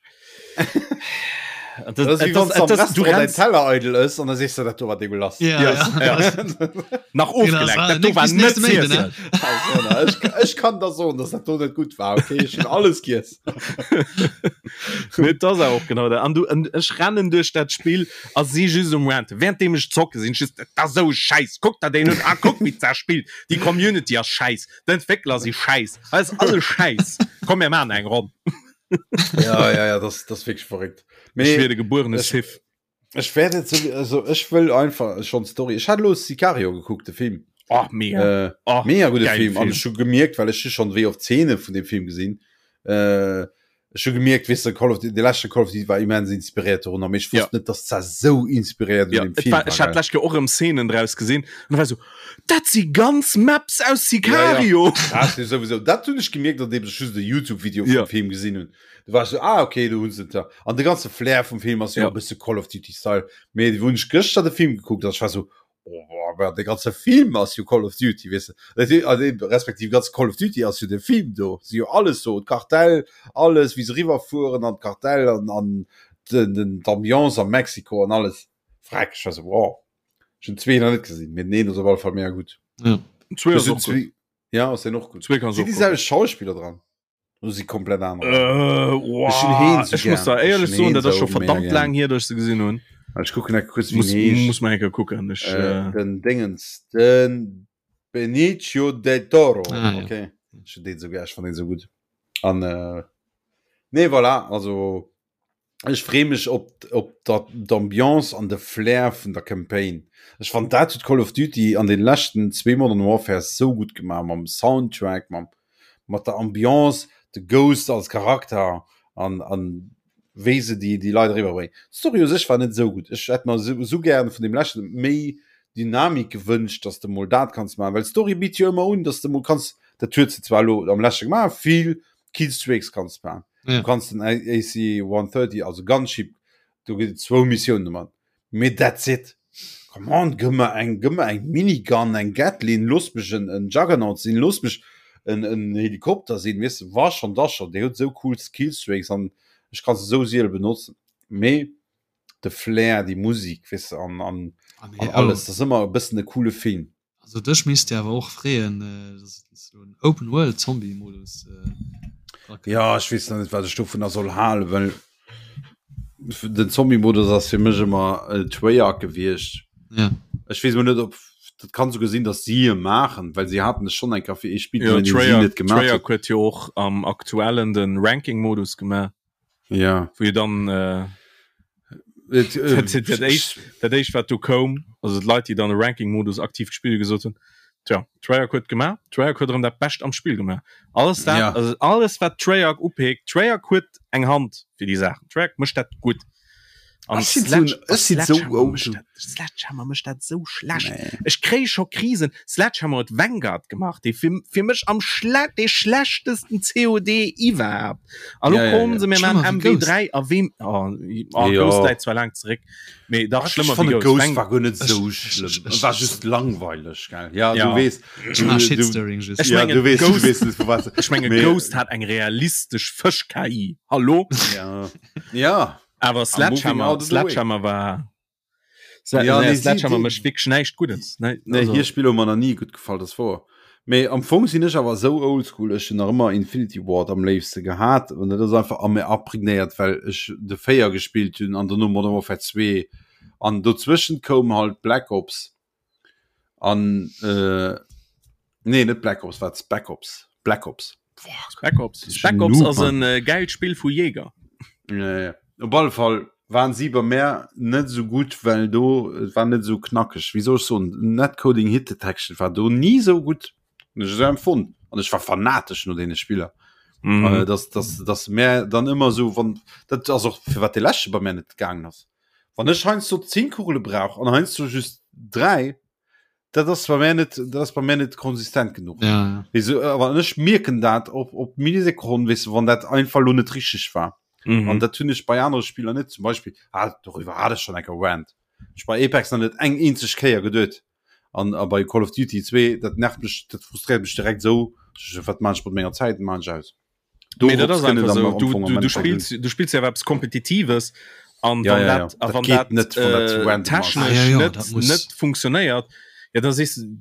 B: Du Teller eidel ass an da sees du dat do war degulas.
D: Ja, ja. ja.
C: Nach ofgeleckt, dat do war net z'iessen.
B: Ech kann der soen, dass dat do net gutt war. Okay, ech hunn alles giess.
C: Mee et ass awer och genau dat. An du, an ech rennen duerch dat Spill a si just um Ranten. Währenddeem ech zocke sinn ech just, dat ass esou e Schäiss, kuck der deen un, ah kuck wéi d'Saach spillt, déi Community ass schäiss, d'Entwéckler si schäiss, hei ass alles schäiss, komm mir maachen eng Ronn.
B: Ja, ja, ja, das, das wirklich verrückt.
C: Ech wier de gebuerene Sith.
B: Ech werde so, also ech wëll einfach schon Story. Ech hat lo Sicario gekuckt, de Film.
C: Oh, mega.
B: Äh, oh, mega gute Film. Film. An ech hu gemierkt, well ech schon wéi oft Szene vun dem Film gesinn. Äh, ech hu gemierkt, weess de, Call of Duty, de leschte Call of Duty war immens inspiréiert dorunner, mee ech wosst
C: ja.
B: net, dass dat sou inspiréiert
C: ja,
B: un dem Film
C: war. Ech hat lech och erëm Szenen draus gesinn an war so, dat si ganz Maps aus Sicario.
B: Ja, ja. Dat sowieso. Dat hunn ech gemierkt, andeem ech just de YouTube-Video vum
C: ja.
B: Film gesinn hunn. Du war so, ah, okay, du hunn se da. An de ganze Flair vum Film ass jo
C: ja.
B: e bësse Call of Duty Style. Mee wou ech gëschter de Film gekuckt, ech war so, oh, aber de ganze Film ass jo Call of Duty, weess de. Dat he- also eben, respektiv ganz Call of Duty ass jo de Film do. Si jo alles so, d'Kartell, alles, wéi se riwwerfueren an d'Kartell an, an den, den, d'Ambiance a Mexiko an alles. Freck, ech war so, wow. Ech hunn zwee nach net gesinn, mee den een ass op alle Fall mega gutt.
D: Ja.
C: Zwee ass
B: Ech hunn
C: och gutt.
B: zwee- Ja, ass den och gutt.
C: Zwee kanns
B: Sinn
C: och
B: déi
C: kucken.
B: selwecht Schauspiller dran? Oder si komplett aner?
C: Äh,
B: Ech hunn heen
C: wow.
B: sou
C: Ech muss
B: gern.
C: da
B: Ech
C: éierlech
B: hunn
C: soen,
B: heen
C: dat ass
B: sou
C: scho
B: mega
C: verdammt
B: gern.
C: laang hier, dass ech se gesinn hunn.
B: Ech kucken enke kuerz, wéi
C: Muss,
B: en heescht.
C: muss mal enke kucken. Ech,
B: Äh,
C: äh,
B: den Dingens, den Benicio del Toro.
D: Ah, ja.
B: Okay. Ech hunn deen sou gär, ech fannen deen sou gutt. An äh, nee, voilà, also ech free mech op op dat d'Ambiance an de Flair vun der Campaign. Ech fand dat huet Call of Duty an den leschten zwee Modern Warfares sou gutt gemaach mam Soundtrack, mam mat der Ambiance, de Ghost als Charakter an an wéi se déi déi Leit eriwwer bréngen. D'Story u sech war net esou gutt. Ech hätt mer esou esou gären vun deem leschten méi Dynamik gewënscht, dass de mol dat kanns maachen, well d'Story bitt jo ëmmer un, dass de mol kanns, dat huet se zwar elo am leschte gemaach, vill Killstreaks kanns maachen.
D: Ja.
B: Du kanns den AC 130, also Gunship, do gëtt et zwou Missiounen domat. Mee that's it. Come on, gëmm mer eng, gëmm mer eng Minigun, eng Gatling, looss mech en, en Juggernaut sinn, looss mech en, en Helikopter sinn, weess de, wa schon, da schon. Déi huet esou cool Killstreaks an ech ka se esou siele benotzen. Mee de Flair, déi Musik, weess de, an, an,
D: Ah, nee,
B: an
D: oh.
B: alles, dat ass ëmmer e bëssen e coole Film.
D: Also dech misst dir awer och freeën, dass et esou en Open World Zombie Modus
B: dra kënnt. Ja, ech weess nach net wat ech dovunner soll halen, well den Zombie Modus ass fir mech ëmmer Treyarch gewiescht.
D: Ja.
B: Ech weess mol net ob dat kann souguer sinn, datt si e maachen, well si haten e schonn eng Kéier fir ee Spill
C: Jo,
B: deen si
C: Treyarch,
B: net gemaach
C: Treyarch huet jo och am aktuellen den Ranking Modus gemaach.
B: Ja.
C: Wou jo dann äh,
B: Et, äh,
C: dat, dat, éischt, dat éischt wat du koum, also d'Leit déi dann de Ranking-Modus aktiv gespillt gesot hunn, tja, Treyarch huet gemaach, Treyarch huet erëm dat Bescht am Spill gemaach. Alles dat,
B: Ja.
C: also alles wat Treyarch upeekt, Treyarch huet eng Hand fir déi Saachen. Treyarch mécht dat gutt. An
B: Ech sinn
C: Sledge-
B: so- ech sinn so
C: Sledgehammer
B: old.
C: mécht dat- Sledgehammer mécht dat sou schlecht.
B: Nee.
C: Ech kréie scho Krisen. Sledgehammer huet Vanguard gemaach, dee fir, fir mech am schle dee schlechtesten COD iwwerhaapt. A lo
B: Ja, ja,
C: kommen
B: ja.
C: se mir
D: Schlimmer
C: maan
D: wéi Ghost.
C: MW3 a wem oh, oh,
B: Ja.
C: Ghost läit zwar laang zeréck, mee dach
B: Ech
C: schlëmmer wéi
B: fand
C: Ghost.
B: Ghost
C: Vang
B: war guer net sou
D: Ech-
B: schlëmm.
D: ech- ech-
B: War just langweileg, gell? Ja,
C: Ja.
B: du weess.
D: Ech mag
B: du-
D: Shitstirring just.
C: Ech
B: Ja,
C: mengen,
B: du weess, du
C: Ghost-
B: weess net, vu wat.
C: Ech menge
B: Mee-
C: Ghost hat eng realistesch Fësch-KI. Hallo?
B: Ja. Ja.
C: Awer
B: moving
C: Sledgehammer,
B: out of the way.
C: Sledgehammer war Sle
B: Ja,
C: nee,
B: nee, si-
C: Sledgehammer
B: die-
C: mécht wierklech näischt Guddes. Nee,
B: Nee,
C: also,
B: hir Spiller hu mer nach ni gutt gefall, dat ass wouer. Mee am Fong sinn ech awer esou oldschool, ech hunn nach ëmmer Infinity Ward am léifste gehat an dat ass einfach a mir aprägnéiert, well ech de 4 gespillt hunn an dono Modern Warfare 2 an dozwëschent koum halt Black Ops an äh, nee, net Black Ops, wat Spec Ops, Black Ops.
C: Spec Ops. Spec Ops ass en äh, geilt Spill vu Jäger.
B: Ja, ja. Op alle Fall waren si bei mär net esou gutt, well do et war net esou knackeg. Wéi soll ech soen, Netcoding Hit Detection war do ni esou gutt, hunn ech esou empfonnt. An ech war fanatesch no deene Spiller.
C: Mhm.
B: Äh, dass, dass, dass mär dann ëmmer esou, wann, dat ass och firwat dee leschte bei mär net gaangen ass. Wann ech heiansdo 10 Kugele brauch an heiansdo just 3, dat ass bei mär net, dat ass bei mär net konsistent genuch.
D: Ja, ja.
B: Weess du, awer ech mierken dat op, op Millisekonn, weess du, wann dat einfach lo net richteg war.
C: Mhm.
B: An dat hunn ech bei anere Spiller net. Zum Beispill, ah, doriwwer hat ech schon eng Kéier Rant. Ech bei Apex nach net eng eenzeg Kéier geduet. An a bei Call of Duty 2, dat nervt mech, dat frustréiert mech direkt esou, wat maan ech mat menger Zäit, maan ech aus.
C: Nee, dat ass einfach so. Du, du, du spills, du spills ja eppes Kompetitives. An
B: Ja,
C: wann
B: ja, ja.
C: dat, a
B: Dat
C: wann
B: geet
C: dat
B: net, wann dat zu
C: äh,
B: random ass.
C: technesch
D: Ah, ja, ja,
C: net,
D: dat muss-
C: net funktionéiert, ja, da sees du,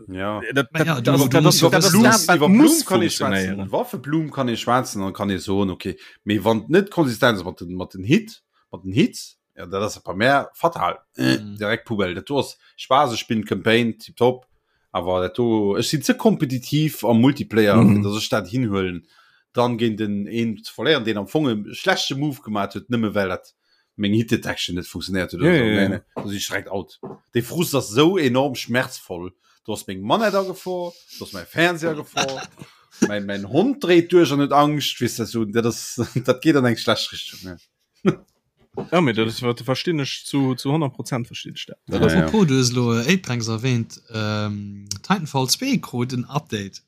B: Ja.
C: äh, dat,
D: Ma ja,
C: dat,
D: du-
C: dat,
D: du
C: dat,
D: musst
C: ass-
D: jo
C: dat ass
D: wëssen,
C: dat,
D: dass-
C: wat
B: Iwwer
C: muss
B: Blum kann ee schwätzen,
C: funktionéieren.
B: Waffeblum kann ee schwätzen, dann kann ee soen, okay, mee wann et net konsistent ass mat den, mat den Hit, mat den Hits, ja, dat ass bei mär fatal. Äh,
D: Mhm.
B: direkt Poubelle. Dat do ass Spaass, ech spillen d'Campaign, tiptop, awer dat do, ech sinn ze kompetitiv am Multiplayer,
C: Mhm.
B: fir dass ech dat hinhuelen, dann géint en een ze verléieren, deen am Fong e schlechte Move gemaat huet, nëmme well dat meng Hit Detection net funktionéiert huet oder
C: Ja,
B: sou.
C: ja,
B: Nee,
C: ja.
B: nee, da sinn ech direkt out. Dee Frust ass sou enorm schmerzvoll. Do ass meng Manett a Gefor, do ass mäi Fernseher a Gefor, mäin, mäin Hond dréit duerch an huet Angscht, weess de, sou, dat ass, dat geet an eng schlecht Richtung, ne.
C: Ja, mee dat ass, wat verstinn ech zu, zu 100 Prozent verstinn ech dat.
B: Ja, ja.
D: Apropos, du hues elo Apex erwähnt, ähm, Titanfall 2 krut en Update.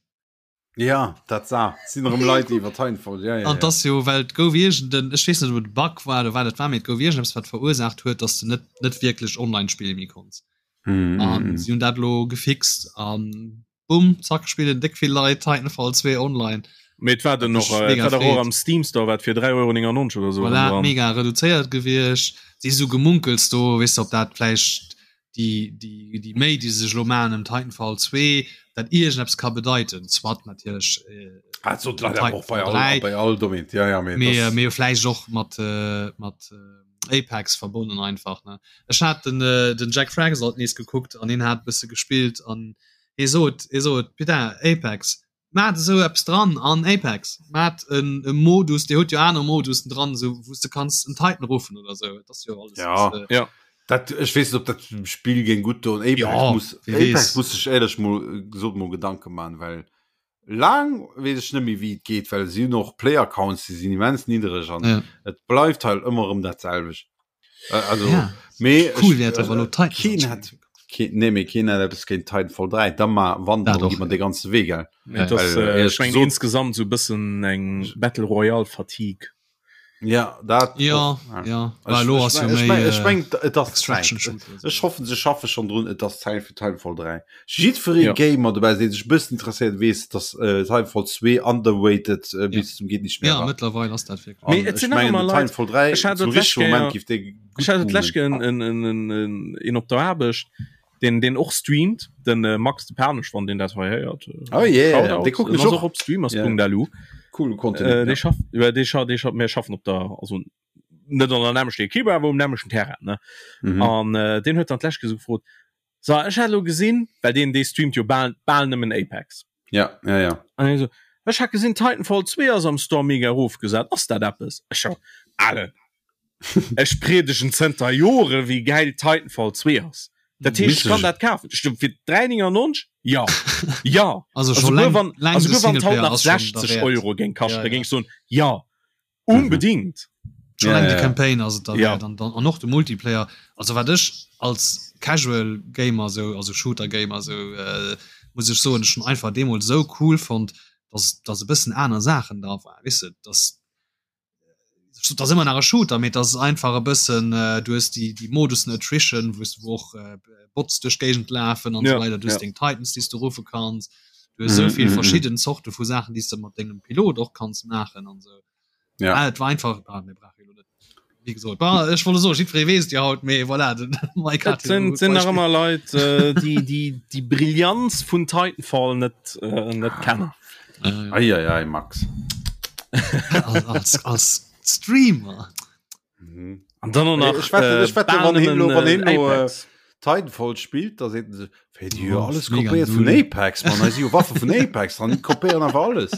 B: Ja, dat sa sinn erëm Leit déi iwwer Titanfall, ja, ja,
D: An
B: ja.
D: das jo well et gouf iergenden, ech weess net ob et e Bug war oder wat et war, mee et gouf iergendeppes wat verursaacht huet, dass de net net wierklech online spille méi konns.
B: Mhm,
D: An
B: mhm.
D: si hunn dat elo gefixt an bumm, zack spillen déck vill Leit Titanfall 2 online.
C: Mee et war den
D: Wat
C: och,
D: mech
C: äh, et
D: mega
C: war dach och
D: freet.
C: am Steam Store wat fir 3,99 Euro oder sou
D: Voilà,
C: dran.
D: mega reduzéiert gewiescht. Si sou Gemunkels do, weess de, ob dat vläicht déi, déi, déi Méi, déi se sech elo maachen ëm Titanfall 2, dat iergendeppes ka bedeiten. Soit natierlech äh,
B: Ah, dat sot leider och bei
D: Titanfall
B: all,
D: 3,
B: bei all Domaine. Ja, ja, mee
D: mee,
B: das,
D: mee vläicht och mat, äh, mat äh, Apex verbonnen einfach. Ne? Ech hat den, äh, den Jack Fragsalt nees gekuckt an hien hat e bësse gespillt an hie sot, hie sot, putain, Apex, Maat esou eppes dran an Apex, maat en e Modus, dir hutt jo aner Modusen dran, esou wou s de kanns en Titan ruffen oder esou, et ass jo alles
B: Ja.
D: äh,
C: Ja.
B: dat, ech weess net, ob dat dem Spill géing gutt doen. Apex
D: Ja,
B: muss,
D: wie
B: Apex
D: weess.
B: muss sech éierlech mol, gesot mol Gedanke man, well laang weess ech net méi wéi et geet, well si hunn och Player Counts, déi sinn immens niddereg an
D: Ja.
B: et bleift halt ëmmer erëm dat selwecht. Äh, also
D: Ja.
B: mee
D: Cool
B: ech,
D: wär et awer elo
B: äh,
D: Titans
B: keen
D: anspillen
B: hat keen, nee, mee keen hat eppes géint Titanfall 3, da ma wann
D: Dat
B: dann
D: och,
B: gi mer
D: ja.
B: de ganze Wee gell.
C: Mee et ass,
B: Well,
C: äh, ech
B: éierlech
C: mengen
B: gesot,
C: insgesamt sou e bëssen eng Battle Royale Fatigue.
B: Ja, dat
D: Ja,
B: och, ja.
D: ja.
B: Ech,
D: Well elo
B: ech,
D: ass jo
B: ech,
D: méi
B: meng, ech
D: äh,
B: meng, et ass Zäit.
D: Extraction Shooter
B: Ech
D: esou.
B: hoffen, se schaffe schonn drun, et ass Zäit fir Titanfall 3. Jiddweree
C: Ja.
B: Gamer dobäi, dee sech e bëssen interesséiert, weess, dass äh, Titanfall 2 underrated äh,
D: Ja.
B: bis zum geht nicht mehr
D: Ja,
B: war.
D: mëttlerweil ass dat wierklech.
C: Mee
B: An
C: et
B: ech
C: sinn nach
B: mengen,
C: ëmmer
B: den
C: Leit,
B: Titanfall 3
C: ech hat
B: zum
C: dat d'lescht
B: richtige Moment
C: Kéier,
B: giff dee
C: ech
B: gutt
C: hat dat d'lescht
B: boomen.
C: Kéier en, en, en, en, een op der Aarbecht, deen, deen och streamt, den äh, Max de Panesch, wann deen dat hei héiert. Äh,
B: Oh yeah,
C: Shoutout.
B: dee kucken
C: En
B: ech
C: ass
B: och.
C: och op streamers.lu.
B: Cool Content.
C: Äh,
B: ja.
C: dee schafft, ja, dee scha, dee scha, mir schaffen op der, also net an der nämlechter Equipe, awer um nämlechten Terrain, ne?
B: Mhm.
C: An äh, deen huet dann d'lescht Kéier sou gefrot, so, ech hat elo gesinn, well deen, dee streamt jo bal, bal nëmmen Apex.
B: Ja, ja, ja.
C: An hie so, ech hat gesinn, Titanfall 2 ass am Store mega erofgesat, ass dat eppes? Ech so, Alen, ech priedegen zënter Jore wéi gäil Titanfall 2 ass. Dat heescht, ech kann dat kafen. Ech so, fir 3,99? Ja, ja.
D: Also
C: Also
D: scho
C: guer
D: läng,
C: wann,
D: läng
C: also
D: de
C: guer wann d'haut
D: Singleplayer
C: nach
D: ass schon
C: 60
D: derwäert.
C: Euro géing kaschten,
D: Ja,
C: da
D: ja.
C: géing ech soen, ja, unbedingt.
D: Schon
B: Ja,
D: eng
B: ja,
D: de
B: ja.
D: Campaign ass et
C: Ja.
D: derwäert an dann an och de Multiplayer. Also wat ech als Casual Gamer sou, also Shooter Gamer sou äh, muss ech soen, ech hunn einfach deemools sou cool fonnt, dass dass e bëssen aner Saachen dra waren, weess de, dass et ass ëmmer nach e Shooter, mee et ass einfach e bëssen äh, du hues déi déi Modussen Attrition, wou s du och äh, Bots duerch d'Géigend lafen an
C: Ja,
D: sou weider, du hues
C: ja.
D: deng Titans, déi s du ruffe kanns, du hues sou
B: Mhm,
D: vill
B: mhm, mhm.
D: verschidden Zorte vu Saachen, déi s de mat dengem Pilot och kanns maachen an sou.
B: Ja.
D: Ah, et war einfach ah, mir brauche jo net wéi gesot bah, ech wollt soen jiddweree weess et jo haut mee voilà den Mike
C: Et
D: hat jo
C: sinn,
D: e gutt
C: sinn nach
D: Beispill.
C: ëmmer Leit, äh, déi, déi, déi Brillanz vun Titanfall net, äh, net kennen.
D: Ja, ja.
B: Ei, ei, ei, Max.
D: Als, als, als Streamer.
B: Mhm.
C: An dann och nach,
B: Ech wette,
C: äh,
B: ech wette,
C: bal
B: wann hien
C: nëmmen,
B: lo, wann
C: äh,
B: hien lo, äh,
C: Apex.
B: Titanfall spillt, da seet en sech, Wéi, déi hu jo
D: Oh,
B: alles
D: mega
B: kopéiert vun
D: null.
B: Apex, Mann, hei si jo Waffe vun Apex dran, déi kopéieren einfach alles.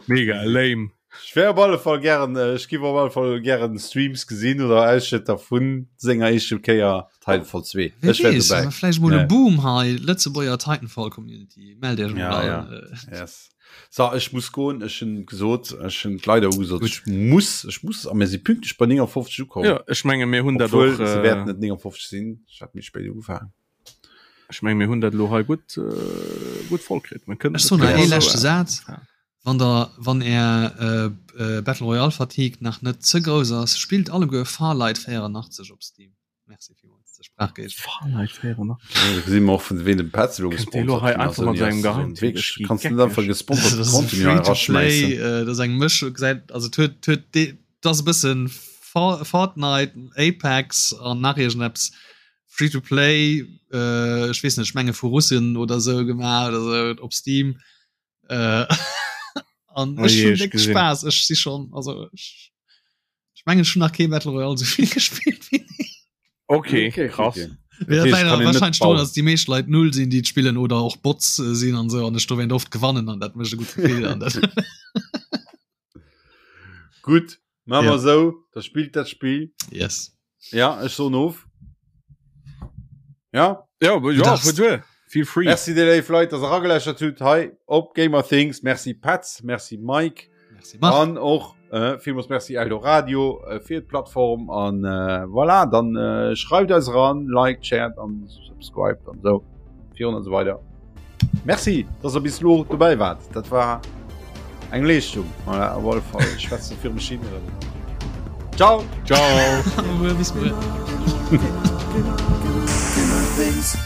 C: Mega lame.
B: Ech wär op alle Fall gären, äh, ech giff op alle Fall gären Streams gesinn oder Ausschnëtter vun senger éischter Kéier Titanfall 2.
D: Wer
B: Ech wär
D: weess,
B: dobäi.
D: vläicht mol e
B: Ja.
D: Boom hei, Lëtzebuerger Titanfall Community, mellt iech mol
B: Ja,
D: an.
B: ja.
D: Äh,
B: Yes. So, ech muss goen, ech hunn gesot, ech hunn d'Leit och gesot,
D: Gutt.
B: ech muss, ech muss, a mir si pünktlech bei 59 ukomm.
C: Ja, ech menge mir hunn dat
B: Obwuel,
C: och,
B: se
C: äh,
B: wäerten net 59 sinn, ech hat méi spéit ugefaangen.
C: Ech menge mir hunn dat elo hei gutt, äh, gutt voll kritt. Mir kënnen
D: Ech soen nach
C: dat
D: ee
C: esou,
D: leschte
C: äh,
D: Saz.
C: ja.
D: Wann der, wann är äh, äh, Battle Royale Fatigue nach net ze grouss ass, spillt alleguer Farlight 84 op Steam. Merci villmools. zur Sprach geet.
C: Fahrenheit 400.
B: Ja, da si mer och vun ween dem Petz elo
C: Kënnt dee lo
B: gesponsert
C: hei
B: ginn ass,
C: einfach mat
B: ouni
C: sengem
B: ass so
C: Geheimtipp,
B: wierklech
C: ech gi
B: kanns du net
C: geckeg.
B: einfach gesponserte
D: Das ass e
B: Contenu hei
D: Free-to-Play,
B: eraschmäissen.
D: äh, dat ass eng Mëschung, gesäit also et huet huet dee dat ass e bëssen For Fortnite, Apex an nach iergendeppes Free-to-Play, äh, ech weess net, ech menge vu Russen oder sou gemaach oder sou op Steam. Äh, an
C: Oh
D: ech
C: je,
D: hunn
C: ech
D: déck
C: gesinn.
D: Spaass, ech si schonn also ech ech mengen ech hunn nach kee Battle Royale sou vill gespillt wéi deen.
C: Okay,
B: Okay,
C: krass.
B: okay.
D: Ja,
B: Dat heescht,
D: leider
B: kann een net
D: wahrscheinlich drun,
B: bauen.
D: dass die meescht Leit null sinn, déi et spillen oder och Bots äh, sinn an so an ech dowéint oft gewannen an dat mécht e gutt Gefill an dat.
B: Gutt, maache
D: Ja.
B: mer esou, da spillt dat Spill.
D: Yes.
B: Ja, ech soen of. Ja.
C: Ja, ja,
D: darfst.
C: fuer duer. Feel free.
B: Merci dir léif Leit, dass der erageläschert hutt hei op Gamer Things. Merci Petz, merci Mike.
D: Merci Marc.
B: An och äh, villmools Merci Eldoradio äh, fir d'Plattform an äh, voilà, dann äh, schreift eis ran, liked, shared an subscribed an so virun an so weider. Merci, dass der bis lo dobäi wart. Dat war eng Leeschtung. Voilà, op alle Fall. Ich schwätze fir mech hin. Ciao.
C: Ciao.
D: Bis muer.
A: Gamer Things.